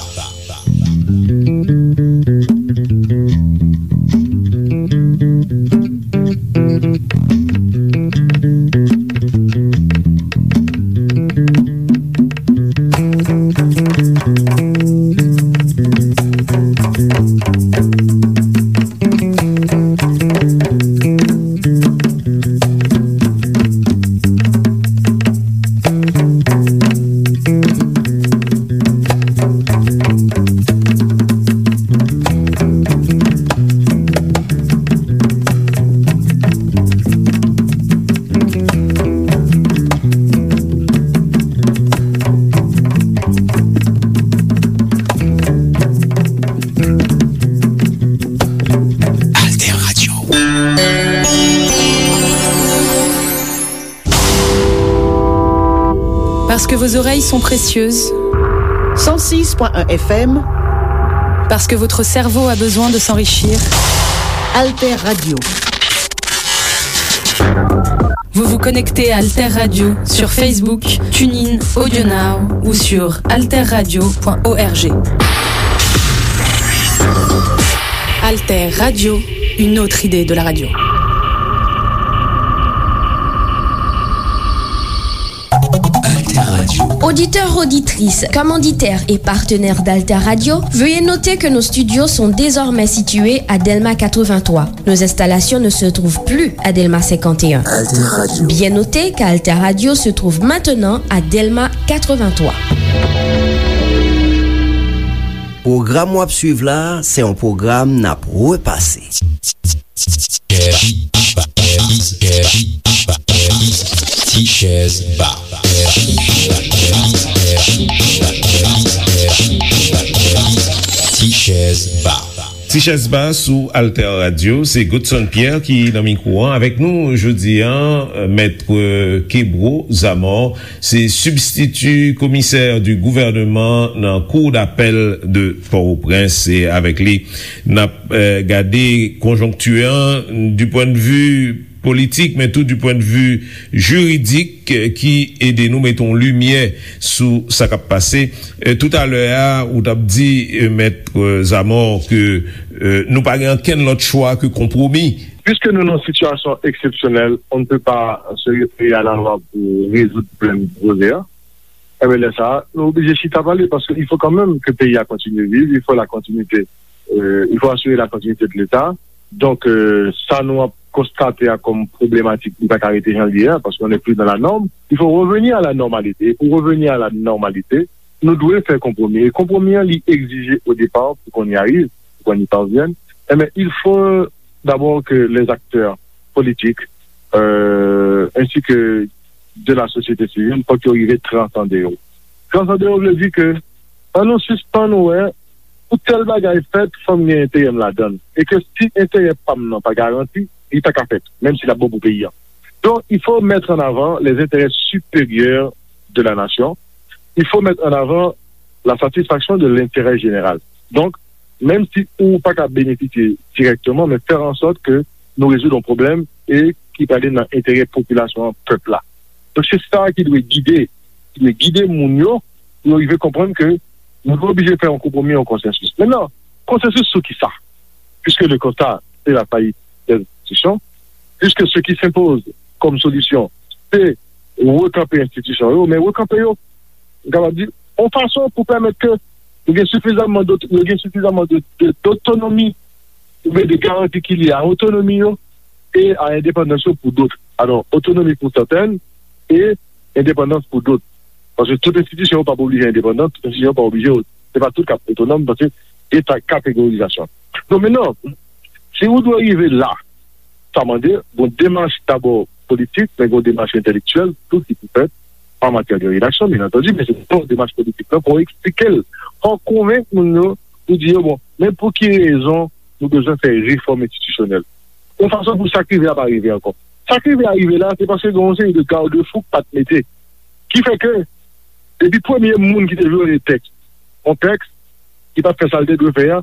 Vos oreilles sont précieuses. Cent six point un F M. Parce que votre cerveau a besoin de s'enrichir. Alter Radio. Vous vous connectez à Alter Radio sur Facebook, TuneIn, AudioNow ou sur alterradio point org. Alter Radio, une autre idée de la radio. Auditeurs, auditrices, commanditaires et partenaires d'Alter Radio, veuillez noter que nos studios sont désormais situés à Delma quatre-vingt-trois. Nos installations ne se trouvent plus à Delma cinquante et un. Bien noter qu'Alter Radio se trouve maintenant à Delma quatre-vingt-trois. Pwogram w ap swiv la a, se yon pwogram n ap repase. Tichèz Ba. Tichèz Ba. Tichèz Ba sou Alter Radio, se Godson Pierre ki nan mikwo an. Avèk nou jodi a, Mèt Kebro Zamor, se sibstiti komisè di gouvènman nan Cour d'appel de Port-au-Prince. E avèk li, n ap, eh, gade konjonkti an du point de vue politik, men tou du point de vue jiridik, eh, ki ede nou mete yon limyè sou sa k ap pase. Eh, toutalè a, ou t ap di, eh, Mèt, eh, Zamor, ke, eh, nou pa gen ankenn lòt chwa ke konpwomi. Piske nou nan sitiyasyon eksepsyonèl, on ne peut pas se référer à la loi pour résoudre pwoblèm poze a. Enben, lè sa a, nou oblije chita pale, paske il faut quand même que peyi a kontinye viv, il faut la continuité, euh, il faut assurer la continuité de l'État. Donk, euh, sa nou ap konstate a kòm pwoblematik, li pa ka rete jan l ye a, paske on n'est plus dans la norme. Il faut revenir à la normalité. Et pour revenir à la normalité, nou dwe fè konpwomi. E konpwomi an, li egzije au départ, pour qu'on y arrive, pour qu'on y parvienne, enben, il faut d'abord que les acteurs politiques, euh, ainsi que de la société civile, fòk yo rive transande yo. Transande yo vle di ke, ann nou sispann wè, pou tèl bagay fèt, fò m gen enterè m ladan l. E ke si enterè pa m nan pa garanti, li pa ka fèt, menm si l ap bon pou peyi a. Donc, il faut mettre en avant les intérêts supérieurs de la nation. Il faut mettre en avant la satisfaction de l'intérêt général. Donk, menm si ou pa ka benefisye dirèkteman, men fè an sòt ke nou rezoud yon pwoblèm e ki prale nan enterè popilasyon an, pèp la. Donk, se sa ki dwe gide, ki dwe gide moun yo, pou yo rive konprann ke nou dwe oblije fè yon konpwomi, yon konsansis. Mentnan, konsansis sou ki sa? Puisque le constat, c'est la faillite des institutions, puisque ce qui s'impose comme solution, c'est rekanpe enstitisyon yo, men rekanpe yo, m kapab di, yon fason pou pèmèt ke yo gen sifizamman dot-, yo gen sifizamman de, de, dotonomi, oubyen de garanti ki lye a otonomi yo e a endepandans yo pou dot. Alò, otonomi pou sèten e endepandans pou dot. Paske tout enstitisyon yo p ap oblije endepandan, tout enstitisyon yo p ap oblije, se pa tout k ap otonòm, paske gen sa kategorizasyon. Donk, mentnan, si ou dwe rive la, sa mande yon demach dabò politik, men yon demach entèlektyèl tou ki pou fèt an matyè de redaksyon, byen antandi, men se yon demach politik la pou eksplike l, pou konvenk moun yo, pou di yo, bon, men pou ki rezon nou bezwen fè refòm enstitisyonèl. Yon fason pou sa k rive a pa rive ankò. Sa k rive a rive la, se paske gen yon seri de garde-fou k pa t mete. Ki fè ke, depi premye moun ki te vyole tèks, yon tèks ki pa t fè sa l te dwe fè a,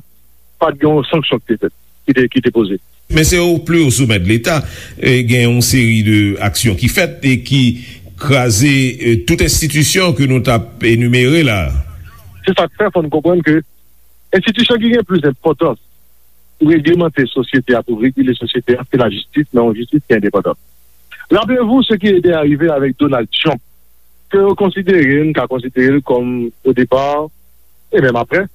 pa t gen yon sanksyon ki te fèt, ki te, ki te poze. Men se o pli o somè de Leta, e, gen yon seri de aksyon ki fèt e ki kraze, e, tout enstitisyon ke nou t ap enimere la. Se sa k fè, fò n konprann ke enstitisyon ki gen plis enpòtans pou reglemante sosyete a, pou regile sosyete a, se lajistis, men yon jistis ki endepandan. Rappelez-vous ce qui était arrivé avec Donald Trump, ke yo konsidere, n ka konsidere l kòm, o depa, e menm apre,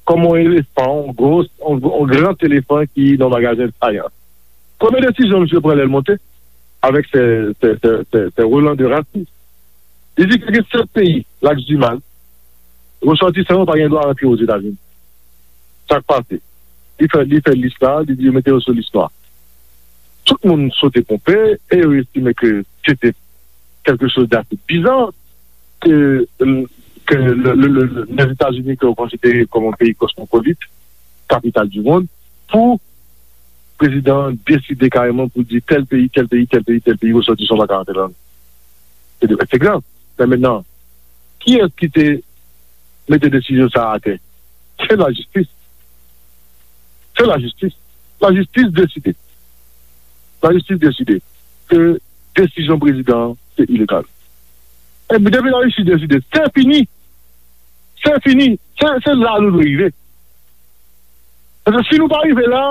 kòm yon elefan, yon gwo, yon, yon gran elefan ki nan magazen sayans. Premye desizyon misye pran lè l monte, avèk se, se, se, se, se Roland de Rassis. Li di ke gen sèt peyi, Laks Dimal, resòtisan yo pa gen dwa rantre Ozetazini. Sa k pase? Li fè, li fè lis la, li di yo mete yo sou lis nwa. Tout moun sote ponpe e yo estime ke se te quelque chose d'assez bizarre que, que le, le, le, les États-Unis, ke yo konsidere kòm yon peyi kosmopolit, kapital du monde, pou prezidan an deside kareman pou di tèl peyi, tèl peyi, tèl peyi, tèl peyi, resòtisan pa ka rantre ladan. Se de, se grav. Men mentnan, Kiyès ki te mete desizyon sa a atè? Se lajistis. Se lajistis. Lajistis deside. Lajistis deside ke desizyon prezidan an se ilegal. Epi depi lajistis deside, se fini. Se fini. Se, se la nou dwe rive. Paske si nou pa rive la,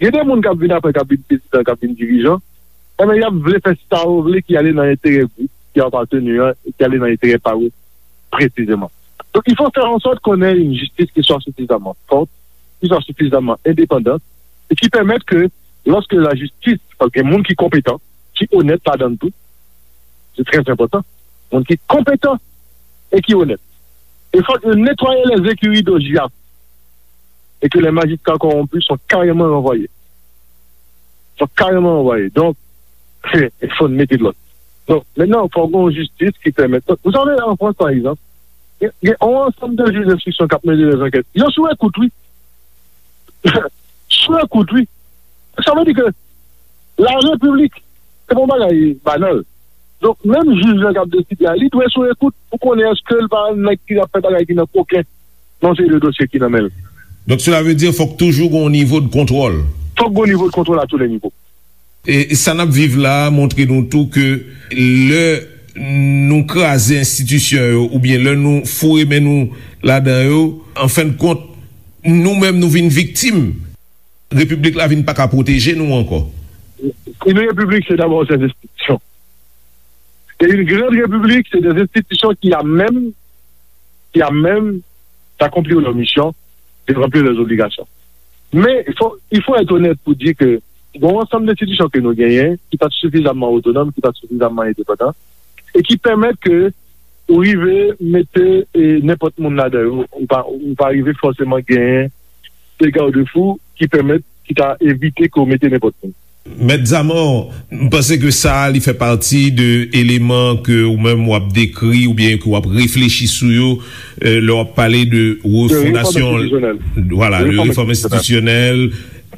gen de moun k ap vin apre, k ap vin prezidan, k ap vin dirijan, enben, y ap vle fè sa yo vle ki ale nan enterè gwoup ki yo aparteni an, e ki ale nan enterè pa yo presizeman. Donc, il faut faire en sorte qu'on ait une justice qui soit suffisamment forte, qui soit suffisamment indépendante, et qui permette que, lorsque la justice, paske gen moun ki konpetan, ki onèt ladan l tou, se trè enpòtan, moun ki konpetan e ki onèt. E fòk yo netwaye les écuries d'O J A F et que les magistrats corrompus sont carrément renvoyés. Sont carrément renvoyés. Donc, il faut mettre de l'ordre. Donc, maintenant, il faut une justice qui permette. Donc, vous savez, en France, par exemple, il y a, il y a un ensemble de juges d'instruction qui ont mené des enquêtes. Ils ont sous écoute, oui. Sou ekout, wi. Sa vle di ke la repiblik, se pa yon bagay banal. Donk, menm jij lan k ap deside a, li dwe sou ekout pou konnen èske l pa nèg ki ap fè bagay ki nan koken nan seri de dosye ki nan men l. Donk, cela veut dire fòk toujou gen yon nivo de kontwòl. Fòk gen yon nivo de kontwòl a tou le nivo. E sa n ap viv la a montre nou tou ke lè nou kraze enstitisyon yo oubyen lè nou foure men nou ladan yo, an fen de kont, nou menm nou vin viktim. Repiblik la vin pa ka pwoteje nou ankò. Une république, c'est d'abord ses institutions. Et une grande république, c'est des institutions qui, à même, qui, à même d'accomplir leur mission, de remplir leurs obligations. Men, il faut, il faut être honnête pour dire que gen yon ansanm enstitisyon ke nou genyen, ki pa t sifizamman otonòm, ki pa t sifizamman endepandan, e ki pèmèt ke ou rive mete, e, nenpòt moun ladan yo. Ou pa, ou pa rive fòseman genyen de garde-fou ki pèmèt, ki ka evite ke w mete nenpòt moun. Mèt Zamò, m panse ke sa a, li fè pati de eleman ke ou menm w ap dekri oubyen ke w ap reflechi sou yo, e, lè w ap pale de refondasyon, vwala, de refòm enstitisyonèl,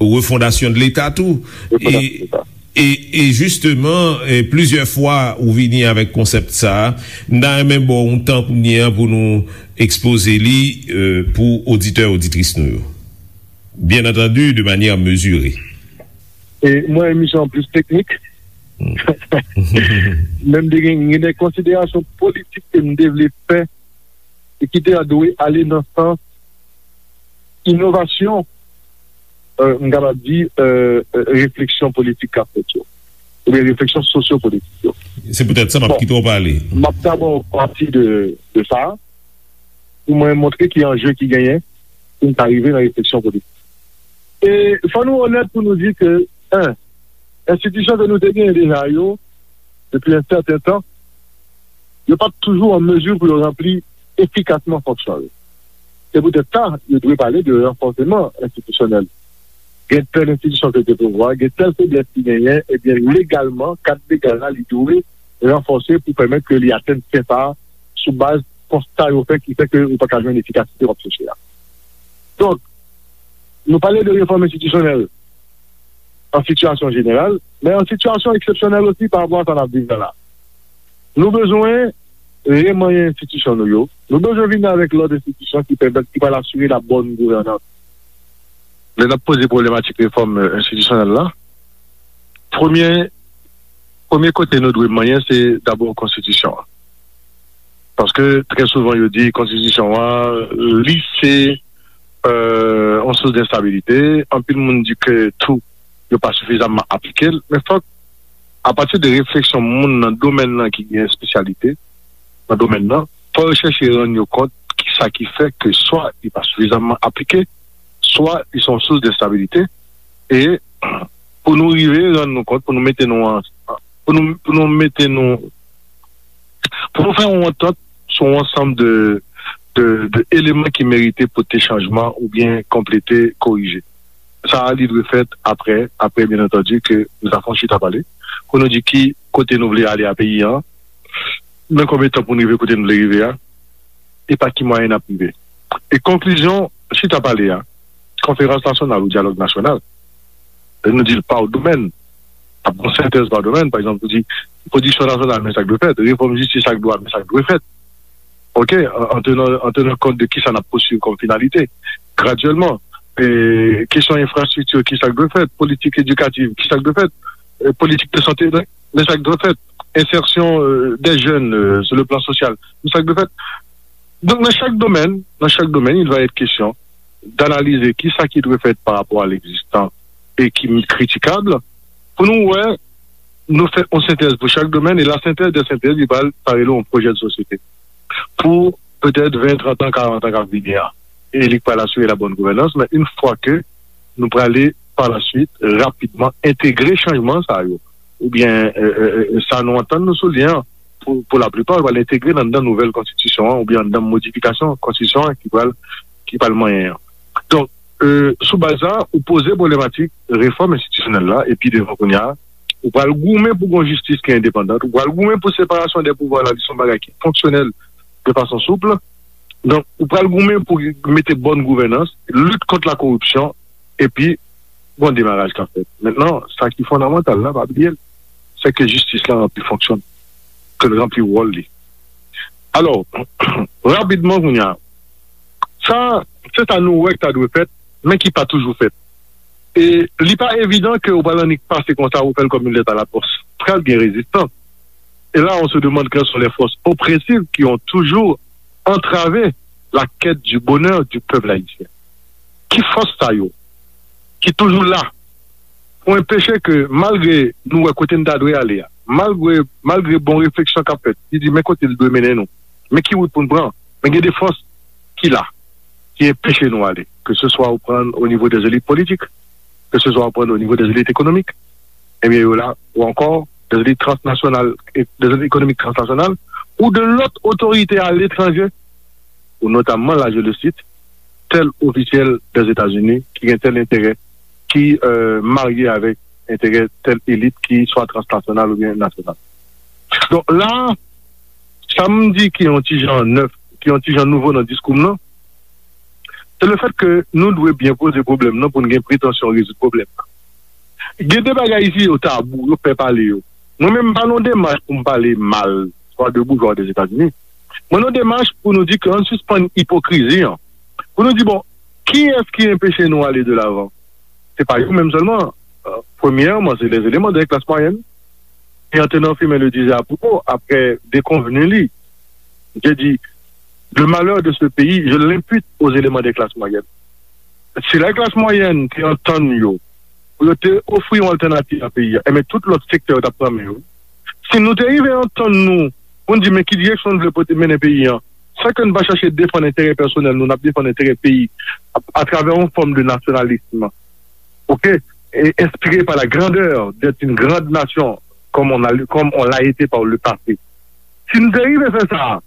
refondasyon de Leta tou. E, e, e jisteman, e, plizyè fwa ou vini avèk konsèp sa a, m ta renmen ba w yon tan kounye a pou nou ekspoze li, e, pou oditè, oditris nou yo. Bien entendu, de manière mesurée. E mwen, emisyon an plis teknik. Men m te gen, gen de konsiderasyon politik ke m te vle fè e ki te dwe ale nan sans inovasyon, e, m kapab di, e, e, refleksyon politik k ap fèt yo, oubyen refleksyon sosyopolitik yo. Se poutèt sa m ap kite w pale. M ap dabò pati de, de sa a, pou mwen montre ki anje ki genyen pou n ta rive nan refleksyon politik. E fò nou onèt pou nou di ke, en, enstitisyon ke nou te genyen deja yo, depi yon sèten tan, yo pa t toujou an mezi pou yo ranpli efikasman fonksyon yo. Se poutèt sa, yo dwe pale de ranfòseman enstitisyonèl. Gen tèl enstitisyon ke te pouvwa, gen tèl feblès ki genyen, ebyen, legalman, kad legal la, li dwe ranfòse pou pèmèt ke li atenn sen sa a sou baz konsta yo fè ki fè ke ou pa ka jwenn efikasite w ap chèche a. Donk, nou pale de refòm enstitisyonèl an sitiyasyon jeneral, men an sitiyasyon eksepsyonèl osi pa rapò a sa n ap viv la la. Nou bezwen remanyen enstitisyon nou yo. Nou bezwen vin avèk lòt enstitisyon ki pèmèt, ki pral asire la bòn gouvènans. Lè n ap poze pwoblematèk refòm, e, enstitisyonèl la, premye, premye kote nou dwe manyen, se dabò konstitisyon an. Paske trè souvan, yo di konstitisyon an, li se, e, yon sous de enstabilite. Anpil moun di ke tou, yo pa sifizamman aplike l. Men fòk, apati de refleksyon moun nan domèn nan ki gen espesyalite nan domèn nan, fò yo chèche rann yo kont ki sa ki fè ke swa li pa sifizamman aplike, swa li se yon sous de enstabilite. E pou nou rive rann nou kont, pou nou mete nou an, pou nou, pou nou mete nou, pou nou fè yon antant sou yon ansanm de, de, de eleman ki merite pote chanjman oubyen konplete, korije. Sa a, li dwe fèt apre, apre, byen antandi, ke nou ta fè yon chita pale, pou nou di ki kote nou vle ale a peyi an, nan konbyen tan pou nou rive kote nou vle rive a, e pa ki mwayen n ap rive. E konklizyon chita pale a, konferans nasyonal ou dyalòg nasyonal, lè nou di l pa domèn, ap gon sentèz pa domèn, pa egzanp, pou di pwodiksyon nasyonal, men sa k dwe fèt, refòm jistis ak dwa, men sa k dwe fèt. Ok, an, an tenan, an tenan kont de kisa n ap pousuiv kòm finalite. Gradyèlman, e, kesyon enfrastrikti, kisa k dwe fèt, politik edikativ, kisa k dwe fèt, e, politik de sante, men sa k dwe fèt, ensèsyon, e, dè jèn, e, sou le plan sosyal, men sa k dwe fèt. Donk, nan chak domèn, nan chak domèn, il va être question d'analyser kisa ki dwe fèt pa rapò a l'existant e ki kritikab, pou nou wè, nou fè yon sentèz pou chak domèn, e la synthèse des synthèses, li pral parele yon pwojè de sosyete pou petèt ven, trant an, karant an k ap vini a. E li pral asire la bonne gouvernance, men yon fwa ke nou prale pa la suite, rapidman, entegre chanjman sa yo, oubyen, e, e, e, sa nou antann nou sou li an, pou, pou laplipa, pral entegre nan, nan nouvèl konstitisyon an, oubyen nan modifikasyon konstitisyon an ki pral, ki pral manyen an. Donk, e, sou baz sa, ou poze pwoblematik refòm enstitisyonèl la, epi devan kounye a, ou pral goumen pou gon jistis ki endepandan, ou pral goumen pou separasyon dè pouvwa la, ki se yon bagay ki fonksyonèl de fason soup. Donk, ou pral goumen pou mete bòn gouvènans, lit kont la koripsyon, epi gon demaraj k ap fèt. Mentnan, sa ki fondamantal la, pa bliye l, se ke jistis la ranpli fonksyon l, ke l ranpli wòl li. Alò, rapidman kounye a, sa, se sa nou wè k ta dwe fèt, men ki pa toujou fèt. E li pa evidan ke ou pral annik pase konsa, ou fè l kòm yon lèt a la pòs. Pral gen rezistans. Et là, on se demande quelles sont les forces oppressives qui ont toujours entravé la quête du bonheur du peuple haïtien. Ki fòs sa yo ki toujou la pou enpeche ke, malgre nou wè kote n ta dwe ale a, malgre, malgre bon refleksyon k ap fèt, ki di men kote l dwe mennen nou, men ki wout pou n pran, men gen de fòs ki la, ki enpeche nou ale, ke se swa ou pran o nivo dè elit politik, ke se swa ou pran o nivo dè elit ekonomik, ebyen yo la, ou ankò dè elit transnasyonal, e dè elit ekonomik transnasyonal, ou de lòt otorite aletranje, ou notamman, la je le cite, tèl ofisyèl dè Etazini ki gen tèl enterè, ki, e, marye avèk enterè tèl elit ki swa transnasyonal oubyen nasyonal. Donk la, sa m di ki yon ti jan nèf, ki yon ti jan nouvo nan diskou m nan, se le fèt ke nou dwe byen poze pwoblèm nan pou n gen pretansyon rezoud pwoblèm nan. Gen de bagay isi yo tabou, yo pè pale yo. Mwen menm, m pa nan demach pou m pale mal, swa de boujwa Ozetazini. Mwen nan demach pou nou di ke ann sispann ipokrizi an. Pou nou di, bon, kiyès ki enpeche nou ale de lavan? Se pa yo menm sèlman. E, premyèman, se les éléments de la classe moyenne. Et en tenant firme le disait à propos, après déconvenu li, j'ai dit, le malheur de ce pays, je l'impute aux éléments des classes moyennes. Si la klas mwayèn te antann yo, pou yo te ofri yon altènativ a peyi a, enben tout lòt sektè yo t ap pran men yo. Si nou te rive antann nou pou n di men ki direksyon n vle pote mennen peyi a, san ke n pa chache defann enterè pèsonèl nou, n ap defann enterè peyi a, atravè yon fòm de nasyonalism, ok, et inspiré par la grandeur d'être une grande nation, comme on a, comme on l'a été par le passé. Si n te rive fè sa,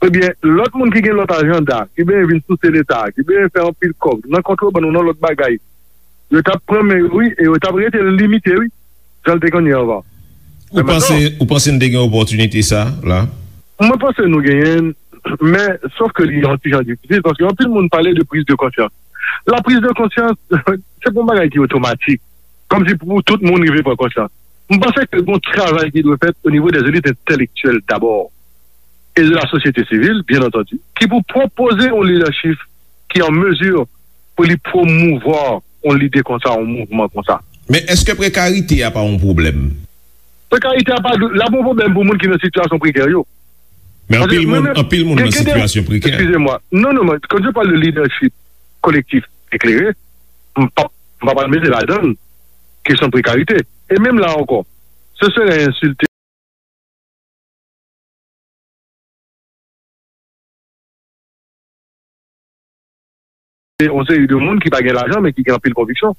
ebyen, lòt moun ki gen lòt ajanda, ki benyen vin souse Leta, ki benyen fè anpil kòb nan kontrebann ou nan lòt bagay, yo t ap pran men yo, wi, e yo t ap rete limite, wi, jan l te konn ye anvan. Ou panse, ou panse n te gen opòtinite sa la? Mwen panse nou genyen l, men sòf ke li yon ti jan difisil, paske anpil moun pale de prise de conscience. La prise de conscience, se pa yon bagay ki otomatik, kòmsi pou tout moun rive pran konsyans. M panse ke gon travay ki dwe fèt o nivo dè elit entèlektyèl dabò, e de la sosyete sivil, byen antandi, ki pou pwopoze yon lidèchip ki an mezi pou li pwomouvwa yon lide konsa, yon mouvman konsa. Men èske prekarite a pa yon pwoblèm? Prekarite a pa, l ap yon pwoblèm pou moun ki nan sitiyasyon prekè yo. Men anpil moun, anpil moun nan sitiyasyon prekè. Excusez-moi. Non, non, mais quand je parle de leadership collectif éclairé, m pa, m pa pral mete ladan l kesyon prekarite. E menm la ankò, ce serait insulter yon seri de moun ki pa gen lajan, men ki gen anpil konviksyon.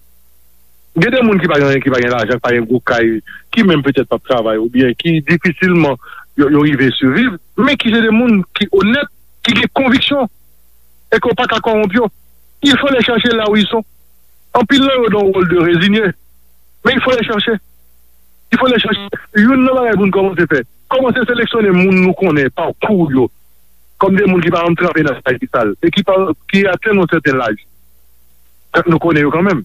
Gen de moun ki pa gen, ki pa gen lajan, ki pa gen gwo kay, ki menm petèt p ap travay, oubyen ki difisilman yo, yo rive siviv, men ki se de moun ki onèt, ki gen konviksyon, e ke w pa ka kòwonp yo. Il faut les chercher là où ils sont. Anpil nan yo dans un rôle de résigné, mais il faut les chercher. Il faut les chercher. Youn nan bagay pou n kòmanse fè, kòmanse seleksyone moun nou konnen, pakou yo, kòm de moun ki pa janm tranpe nan bagay ki sal, e ki pa, ki atenn yon sèten laj. Tank nou konnen yo kanmenm.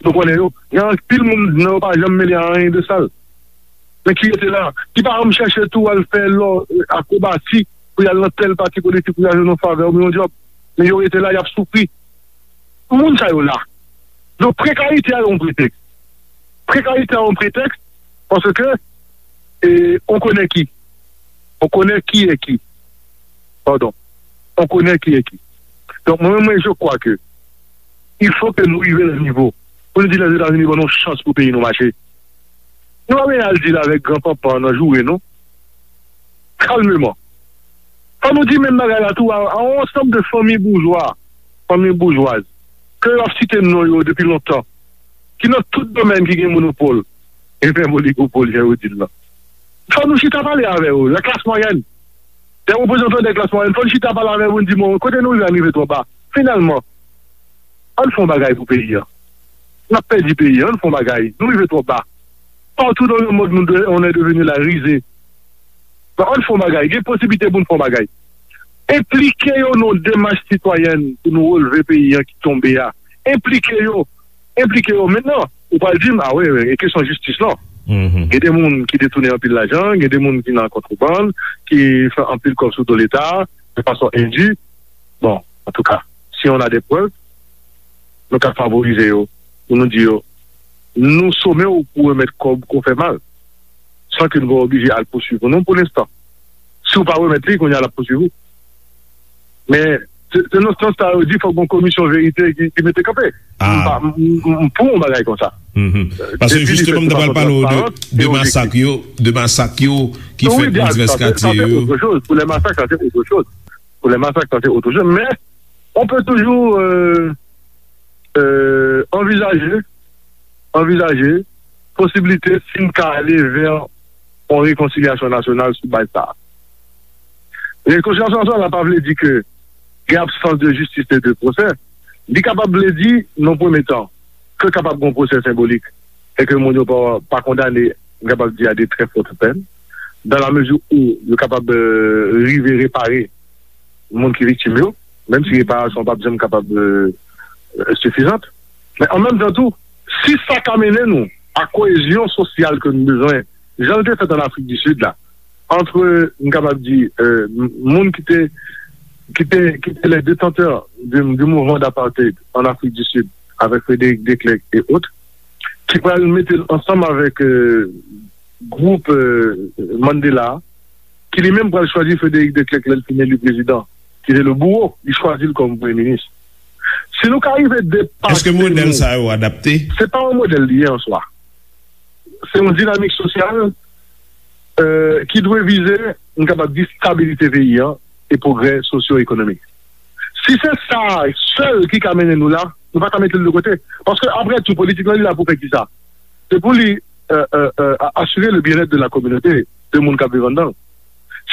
Nou konnen yo. Gen anpil moun nan yo pa janm mele a anyen de sal. Men ki rete la, ki pa janm chèche tou al fè lò, akrobasi, pou y al nan tèl pati politik, pou y al jwenn yon favè oubyen yon djòb. Men yo rete la, y ap soufri. Moun sa yo la. Donk, prekarite a yon pretèks. Prekarite a yon pretèks, paske, e, on konnen ki. On konnen ki e ki. Padon. On konnen ki e ki. Donk, mwen, mwen, je crois que il faut que nou rive nan nivo pou nou di Lèzetazini ban nou chans pou peyi nou mache. Nou pa bezwen al di l avèk gran panpan nan joure, non. Kalmeman. Fò nou di menm bagay la tou a, a yon ansanm de fanmi boujwa, fanmi boujwaz, ke yo ap site non yo depi lontan, ki nan tout domèn ki gen monopòl, e menm oligopòl, jan yo di l lan. Fò nou chita pale avè yo, la klas mwayèn. Dè reprezantan dè klas mwayèn, fò nou chita pale avè yo pou n di, bon, kote nou rive a rive twò ba. Finalman, ann fè yon bagay pou peyi a. N ap pèdi peyi a, ann fè yon bagay. Nou rive twò ba. Partout dans le monde, nous de- on est devenu la risée. Bon, ann fè yon bagay. Gen posiblite pou n fè yon bagay. Enplike yo nan yon demach sitwayèn pou nou releve peyi a ki tonbe a. Enplike yo. Enplike yo. Mentnan, ou pral di m, a wi, wi, e kesyon jistis lan. Gen de moun ki detounen anpil lajan, gen de moun ki nan kontrebann, ki fè anpil kòb sou do Leta, de fason endu. Bon, antouka, si on a des preuves, nou ka favorize yo, pou nou di yo, nou some w pou remèt kòb ke w fè mal, san ke nou pa oblije al pouswiv ou non pou lenstan. Si w pa remèt li, kounye a l ap pouswiv ou. Men, se se nan sans sa yo di fòk gon komisyon verite ki ki mete kanpe. M pa- m- m- m pou yon bagay konsa. Paske jisteman, m ta pral pale w de, de masak yo, de masak yo ki fèt nan divès katye yo. Pour les massacres, ça c'est autre chose. Pour les massacres, ça c'est autre chose. Mais on peut toujours euh, euh, envisager, envisager posibilite si n ka ale vè yon rekonsilyasyon nasyonal sou baz sa a. Rekonsilyasyon nasyonal la pa vle di ke gen absans de jistis e de pwosè. Li kapab vle di, nan premye tan, ke kapab gen yon pwosè senbolik e ke moun yo pa, pa kondane, m kapab di, a de très fortes peines, dans la mesure où yo kapab euh, rive repare moun ki viktim yo, menm si reparasyon p ap janm kapab euh, euh, sifizant. Men an menm tan tou, si sa ka mennen nou a koyezyon sosyal ke nou bezwen, jan l te fèt an Afrik di Sid la, ant, m kapab di, euh, m- moun ki te ki te ki te les détenteurs du, du mouvement d'apartheid en Afrique du Sud avec Frédéric Declercq et autres, ki pral mete l ansanm avèk euh, gwoup euh, Mandela, ki li menm pral chwazi Frédéric Declercq lè l fin eli prezidan, ki se le bouro, li chwazi l kòm premye minis. Si nou ka rive depase Èske modèl nou, sa yo adapte? Se pa yon modèl li ye an swa. Se yon dinamik sosyal euh, ki dwe vize, m kapab di, stabilite peyi an e pwogrè sosyo-ekonomik. Si se sa sèl ki ka mennen nou la, nou pa ka mete l de kote. Paske, apre tou, politik lan, li la pou fè kisa? Se pou li euh, euh, euh, a- asire le bien-être de la communauté, de moun k ap viv anndan l.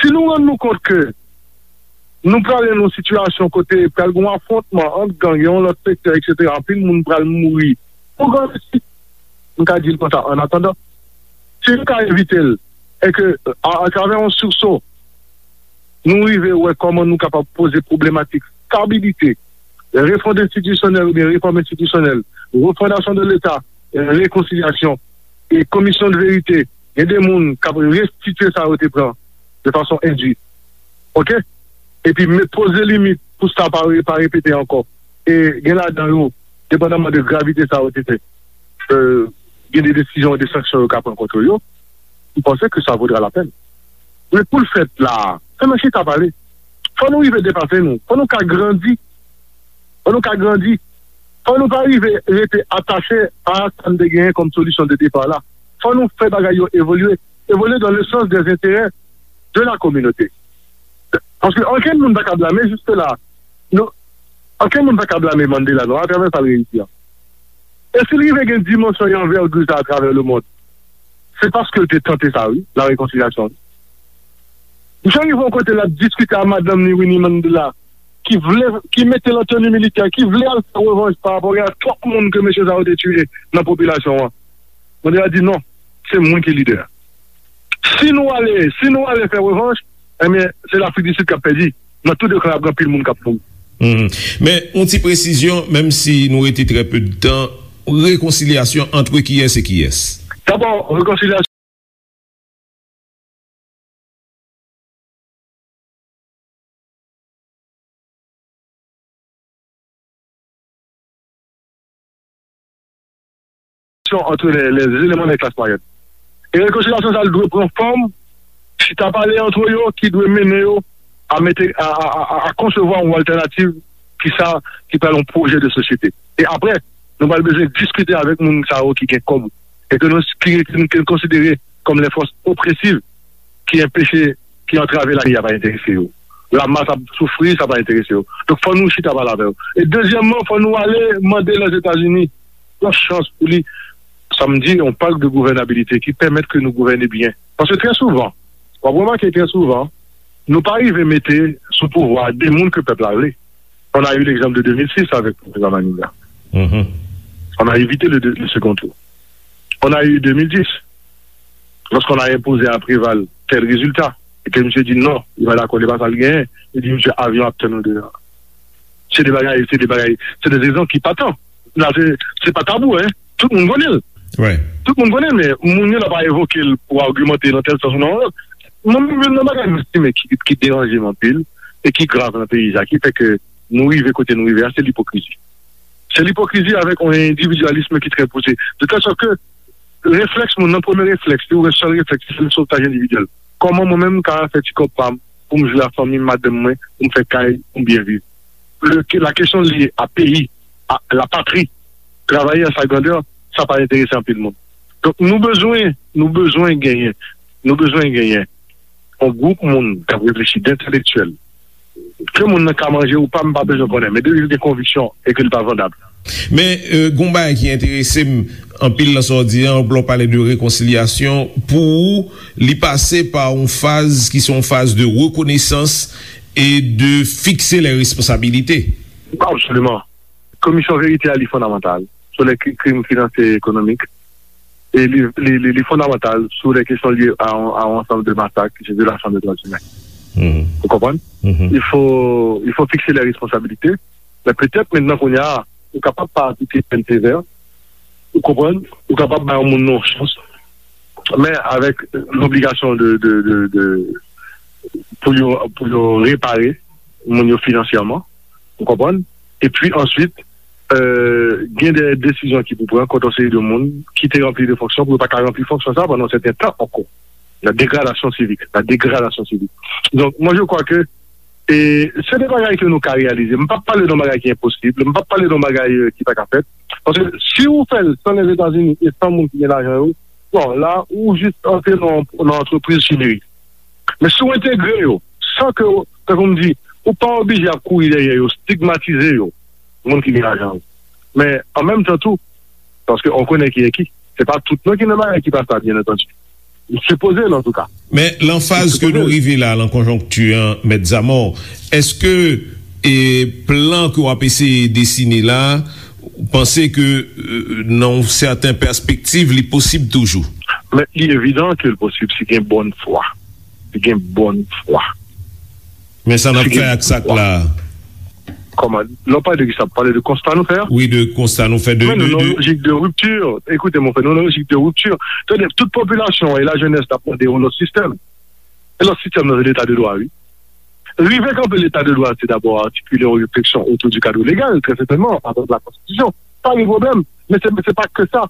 Si nou rann nou kont ke nou prale nan yon sitiyasyon kote pral gen yon afwontman ant gang, yon lòt sektè, etsetera, anpil moun pral mouri pou gran mesi. M ka di l konsa, an atandan, si nou ka evite l, e ke, a, atravè yon sursaut, nou rive wè kòman nou kapab poze pwoblematik stabilite, refond enstitisyonèl oubyen refòm enstitisyonèl, refondasyon de Leta, rekonsilyasyon, e komisyon de verite, gen de moun k ap restitye sa yo te pran de fason endui. Oke? Epi, men poze limit pou sa pa re- pa repete ankò. E gen ladan yo, depandaman de gravite sa yo te fè, euh, gen de desizyon, de sanksyon yo ka pran kont yo, m panse ke sa vodra la pèn. Men pou l fèt la, fò nou chita pale. Fò nou rive depase nou. Fò nou ka grandi. Fò nou ka grandi. Fò nou pa rive rete atache a sa n te genyen kòm solisyon de depa la. Fò nou fè bagay yo evolye. Evolye dans le sens des intérêts de la communauté. Paske ankenn moun pa ka blame jiske la. Nou, ankenn moun pa ka blame Mandela non, atravè sa l reyisi an. E si l rive gen dimansyon e anvègi sa atravè lemonn, se paske l te tante sa, wi, la rekonsilyasyon. Misye rive yon kote l ap diskite a madanm li, Winnie Mandela, ki vle, ki mete l an teni militè, ki vle al fè revanj pa rapò a twòp moun ke mesye sa yo te tiye nan popilasyon an. Mandela di non, se mwen ki lidè a. Si nou ale, si nou ale fè revanj, ebyen, se Lafrik di Sid k ap pèdi. Nan tou de ka, ap gen anpil moun k ap mouri. Men, yon ti presizyon, menm si nou rete trè pe de tan, rekonsilyasyon ant kiyès e kiyès? Dabò, rekonsilyasyon réconciliation entre les, les éléments des classes moyennes. E rekonsilyasyon sa a dwe pran fòm chita pale antre yo ki dwe mennen yo a mete, a, a, a, a, a konsevwa yon altènativ ki sa, ki pral yon pwojè de sosyete. E apre, nou pral bezwen diskite avèk moun sa yo ki gen kòb e ke nou, ki, ki, ke nou konsidere kòm les forces oppressives ki anpeche, ki antrave lavi a pa enterese yo. Lamas ap soufri, sa pa enterese yo. Donk, fò nou chita pale avè yo. E dezyèmman, fò nou ale mande Lèzetazini yon chans pou li, sa m di, yon pak de gouvènabilite ki pèmèt ke nou gouvène byen. Paske trè souvan, w ap remake trè souvan, nou pa rive mete sou pouvwa de moun ke pèp la vle. On a eu l'exemple de deux mille six avec Président Manigat. Mhm. On a évité le, le second tour. On a eu deux mille dix, lorsqu'on a imposé à Préval tel résultat, e ke misye di non, li pa dakò, li pa sa l genyen, li di misye avyon ap tann nou deyò. Se de bagay, se de bagay, se de egzanp ki patan. La, se, se pa tabou, hein. Tout moun konnen l. Wi. Tout moun konnen l, men moun yo la pa evoke l pou agimante nan tèl sans ou nan yon lòt. Mwen menm, youn nan bagay m estime ki, ki deranje m anpil e ki grav nan peyi sa, ki fè ke nou rive kote nou rive a, se lipokrizi. Se lipokrizi avèk yon endividyalism ki trè pouse. De tèl sòt ke reflèks moun nan, premye reflèks, li wè sèl reflèks, se sotaj endividyèl. Kòman mwen menm m ka fè ti kòb pa m pou m jwe a fanmi m, madanm mwen, pou m fè kay, pou m byen viv? Le, la kesyon lye a peyi, a la patri, travay an sa grandè, sa pa enterese anpil moun. Donk, nou bezwen, nou bezwen genyen, nou bezwen genyen yon gwoup moun k ap reflechi, d entelektyèl, ke moun nan ka manje ou pa, m pa bezwen konnen, men depi l gen konviksyon e ke li pa vandab. Men, euh, gon bagay ki enterese m anpil nan sa w di an, lè w pale de rekonsilyasyon, pou ou, li pase pa yon faz ki se yon faz de rekonesans e de fikse lè responsabilite. Absoliman. Komisyon verite a, li fondamantal sou lè kri-, krim finansyè e ekonomik. E li, li, li, li fondamantal sou lè kesyon lye a, a yon ansanm de masak, ki se vyolasyon de dwa imen. Mhm. Ou konprann? Mhm. Il faut, il faut fixer les responsabilités. Men petèt, mentnan, kounye a, ou kapab pa aplike pèn sevè. Ou konprann? Ou kapab bay yon moun nan yon chans. Men avèk lobligasyon de, de, de, de, pou yo, pou yo repare moun yo finansyèman. Ou konprann? Epi answit, euh, gen de desizyon ki pou pran kont yon seri de moun ki te ranpli de fonksyon pou yo pa ka ranpli fonksyon sa pandan yon sèten tan ankò. La dégradation civique, la dégradation civique. Donc, moi, je crois que, e, se de bagay ke nou ka reyalize. M p ap pale de yon bagay ki enposib, m p ap pale de yon bagay, euh, ki pa ka fèt. Paske si ou fè l san Lèzetazini e san moun ki gen lajan yo, bon, la, ou jis antre nan, nan antrepriz chimeri. Men si w entegre yo, san ke, tankou m di, ou pa oblije ap kouri dèyè yo, stigmatize yo, moun ki gen lajan yo. Men, an menm tan tou, paske on konnen ki e ki, se pa tout non ki nan bagay ki pa sa, byen antandi. Li sipoze l, antouka. Men, lan faz ke nou rive la, lan konjonkti an, Mèt Zamò, èske, e, plan ke w ap eseye desine la, ou panse ke, e, nan yon sèten pèspektiv, li posib toujou? Men, li evidan ke l posib si gen bòn fwa. Li gen bòn fwa. Men sa n ap fè ak sa k la a? Kòman? Lè w pale de kisa? W pale de konsta nou fè a? Wi, de konsta nou fè, de, men nou de, nan yon de lojik de ripti. Ekoute, mon frè, nou nan yon lojik de ripti. Tande, tout popilasyon an e lajenès t ap mande yon lòt sistèm. E lòt sistèm nan, se leta de dwa, wi. Rive kanpe leta de dwa, se dabò atikile yon refleksyon otou di kad legal, trè sètènman, avèk la konstitisyon. Pa gen pwoblèm. Men se, se pa ke sa.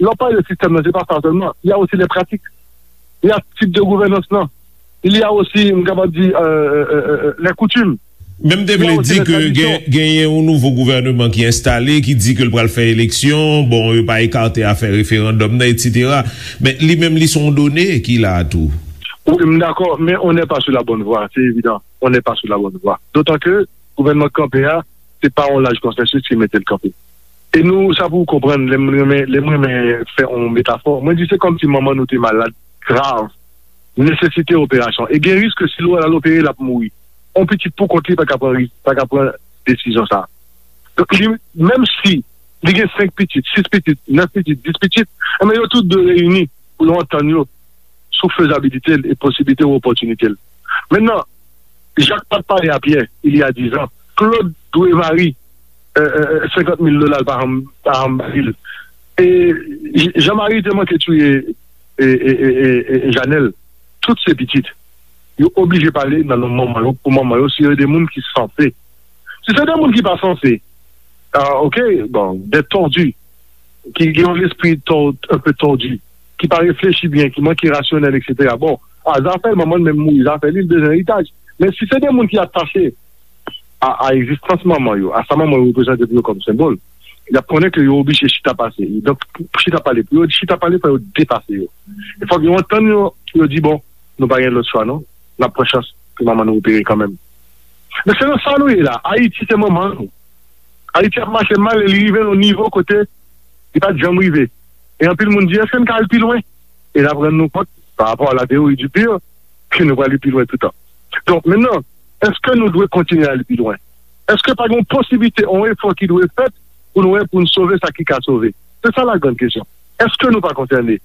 Lè w pale de sistèm nan, se pa sa sèlman. Il y a aussi les pratiques. Il y a tip de gouvènans lan. Il y a aussi, m kapab di, euh, euh, euh, euh, les coutumes. Men m te vle di ke gen, genyen yon nouvo gouvèneman ki enstale, ki di ke l pral fè eleksyon. Bon, yo pa ekate afè referandòm nan, etsetera. Men li menm, li se yon done ki la a tou. Wi, m dakò, men on n'est pas sur la bonne voie, c'est évident. On n'est pas sur la bonne voie. D'autant que gouvènman k kanpe a, se pa yon laj konsèsis ki mete l kanpe. E nou, sa pou w konprann, lè m renmen, lè m renmen fè yon metafò, mwen di se kòmsi manman nou te malad, grav, nesesite operasyon. E gen risk ke si l al opere, l ap mouri. Yon pitit pou kont li pa ka pran ris-, pa ka pran desizyon sa a. Donk, li, menm si li gen senk pitit, sis pitit, nèf pitit, dis pitit, enben, yo tout dwe reyini pou yo antann yo sou fezabilite l e posiblite ou opòtinite l. Mentnan, Jak pa t pale a Pyè, il y a dix ans, Claude dwe Marie, euh, euh, euh, senkant mil dola, l pa janm, pa janm ba li l. E J-, Jean Marie te manke touye, e, e, e, e, e Janèl. Tout se pitit. Yo oblije pale nan non manman yo, pou manman yo, si yo de moun ki sanse. Si se de moun ki pa sanse, ah, ok, bon, dèt tondu. ki gen yon lespri tò-, un peu tòdi, ki pa reflechi byen, ki manke rasyonèl, etsetera. Bon, a, zafè l, manman l menm mouri, zafè li, li bezwen eritaj. Men si se de moun ki atache a, a egzistans manman yo, a sa manman yo reprezante pou yo kòm senbòl, y ap konnen ke yo oblije chita pase. Donk, pou, pou chita pale, pou yo chita pale, fò yo depase yo. E fòk yo antann yo, pou yo di, bon, nou pa gen lòt chwa, non. N ap pran chans pou manman nou opere kanmenm. Men se nan sa nou ye la. Ayiti se manman nou. Ayiti ap mache mal e li rive nan yon nivo kote li pa t janm rive. E anpil moun di, èske n ka al pi lwen? E n ap rann nou kont, pa rapò a la teyori di pir, ke nou pral pi lwen toutan. Donk, mentnan, èske nou dwe kontinye al pi lwen? Èske pa gen yon posiblite, yon efò ki dwe fèt pou nou wè, pou n sove sa ki ka sove? Se sa la grande question. Èske nou pa konsène?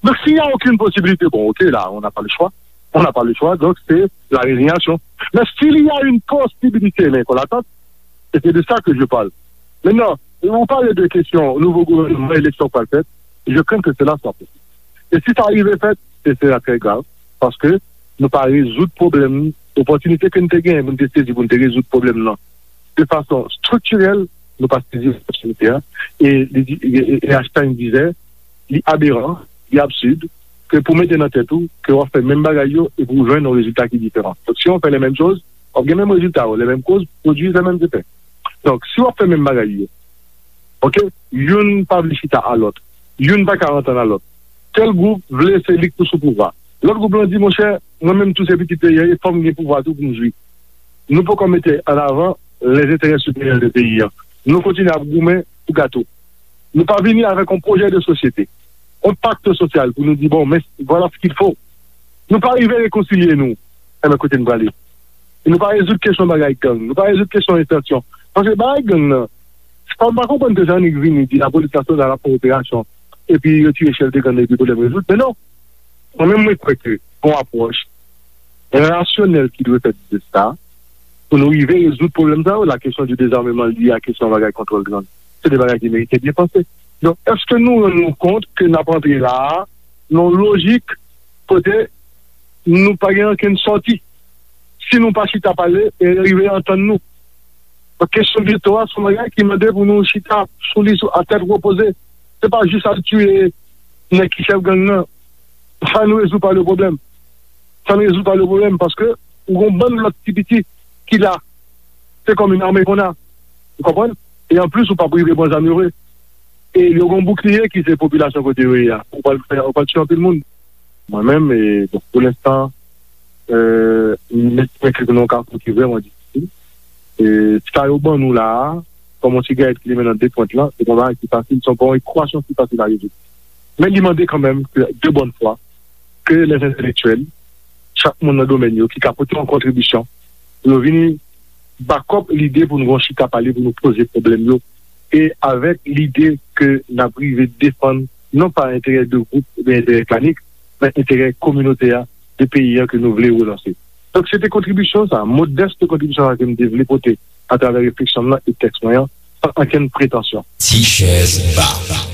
Donk, s'il y a aucune possibilité, bon, ok, là, on n'a pas le choix. On n'a pas le choix, donc c'est la résignation. Mais s'il y a une possibilité, mais qu'on l'attend, et c'est de ça que je parle. Maintenant, vous parlez de question nouveau gouvernement, élection qui va être faite, je crains que cela soit possible. Et si ça arrive fait, ce sera très grave, parce que nou pa rezoud pwoblèm, opòtinite ke n te genyen pou n te sezi pou n te rezoud pwoblèm nan de fason striktirèl, nou pa sezi opòtinite a. E, li di, e, e, e Einstein disait, li aberan, li absid, ke pou mete nan tèt ou ke w ap fè menm bagay yo e pou w jwenn yon rezilta ki diferan. Donk, si w fè les mêmes choses, w ap gen menm rezilta yo, les mêmes causes produisent les mêmes effets. Donk, si w ap fè menm bagay yo, ok, youn pa vle chita a lòt, youn pa ka antann a lòt. Tèl gwoup vle se li k pou sou pouvwa. Lòt gwoup lan di, monchè, mwen menm tou se pitit peyi a, e fò m gen pouvwa tou pou m jwi. Nou poko mete an avan les intérêts supérieurs de peyi a. Nou kontinye ap goumen pou gato. Nou pa vini avèk yon pwojè de sosyete, yon pakt sosyal pou nou di, bon, men voilà ce qu'il faut. Nou pa rive rekonsilye nou. Enben, kote n prale? E nou pa rezoud kesyon bagay gang. Nou pa rezoud kesyon entansyon. Paske bagay gang nan, se pa, m pa konprann ke Jean-Nic vini di lapolis nasyonal ap fè operasyon, epi yo tire chèf de gang nan, epi pwoblèm rezoud. Men non. Mwen menm, mwen kwè ke gon apwòch rasyonèl ki dwe fèt de sa, pou nou rive rezoud pwoblèm sa yo. La question du désarmement lié à kesyon bagay kontwòl gang, se de bagay ki merite byen panse. Donk, èske nou rann nou kont ke n ap antre la a, nan yon lojik kote nou pa gen ankenn sòti? Si nou pa chita pale e rive antann nou. Donk, kesyon geto a, se yon bagay ki mande pou nou chita sou li, sou, a tèt repoze. Se pa jis al tiye nèg ki chèf gang nan. Ça ne résout pas le problème. Ça ne résout pas le problème, paske ou gon bann lòt ti piti ki la. Se kòm yon ame kon a. Ou konprann? E anplis, ou p ap rive pran zam yo vre. E yo gon boukliye ki se popilasyon kote yo ye a. Ou pral fè, ou pral tiye anpil moun. Mwen menm, e, bon, pou lenstan, e, m estime ke nou nan yon kafou ki vrèman difisil. E, sa yo ban nou la a, kòm yon sigarèt ki limen nan de pwent lan, se pa yon bagay ki fasil, se pa yon ekwasyon ki fasil a rezoud. Men li mande kanmenm ke, de bòn fwa, ke les entèlektyèl, chak moun nan domèn yo, ki ka pote yon kontribisyon, pou yo vini back up lide pou nou gon chita pale, pou nou poze pwoblèm yo, e avèk lide ke n ap rive defann non pa enterè de gwoup oubyen enterè klanik, men enterè kominote a, de peyi a ke nou vle relanse. Donk, se te kontribisyon sa, modès kontribisyon sa ke m te vle pote atravè refleksyon m nan e tèks mwen an, san ankenn pretansyon. Ti chèz ba.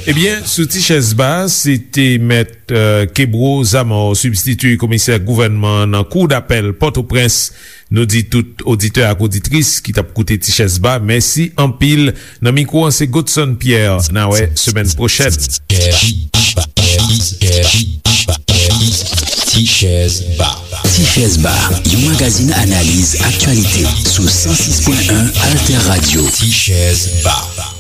Ebyen, sou Ti chèz ba, se te mèt, euh, Kebro Zamor, sibstiti komisè gouvènman an nan Kou dapèl Pòtoprens. Nou di tout oditè ak oditris ki t ap koute Ti chèz ba, mèsi anpil. Nan mikwo an, se Godson Pierre. N a wè semèn pwochèn. Ti chèz ba. Ti chèz ba, yon magazin analiz aktyalite sou san sis pwen en Alter Radio. Ti chèz ba.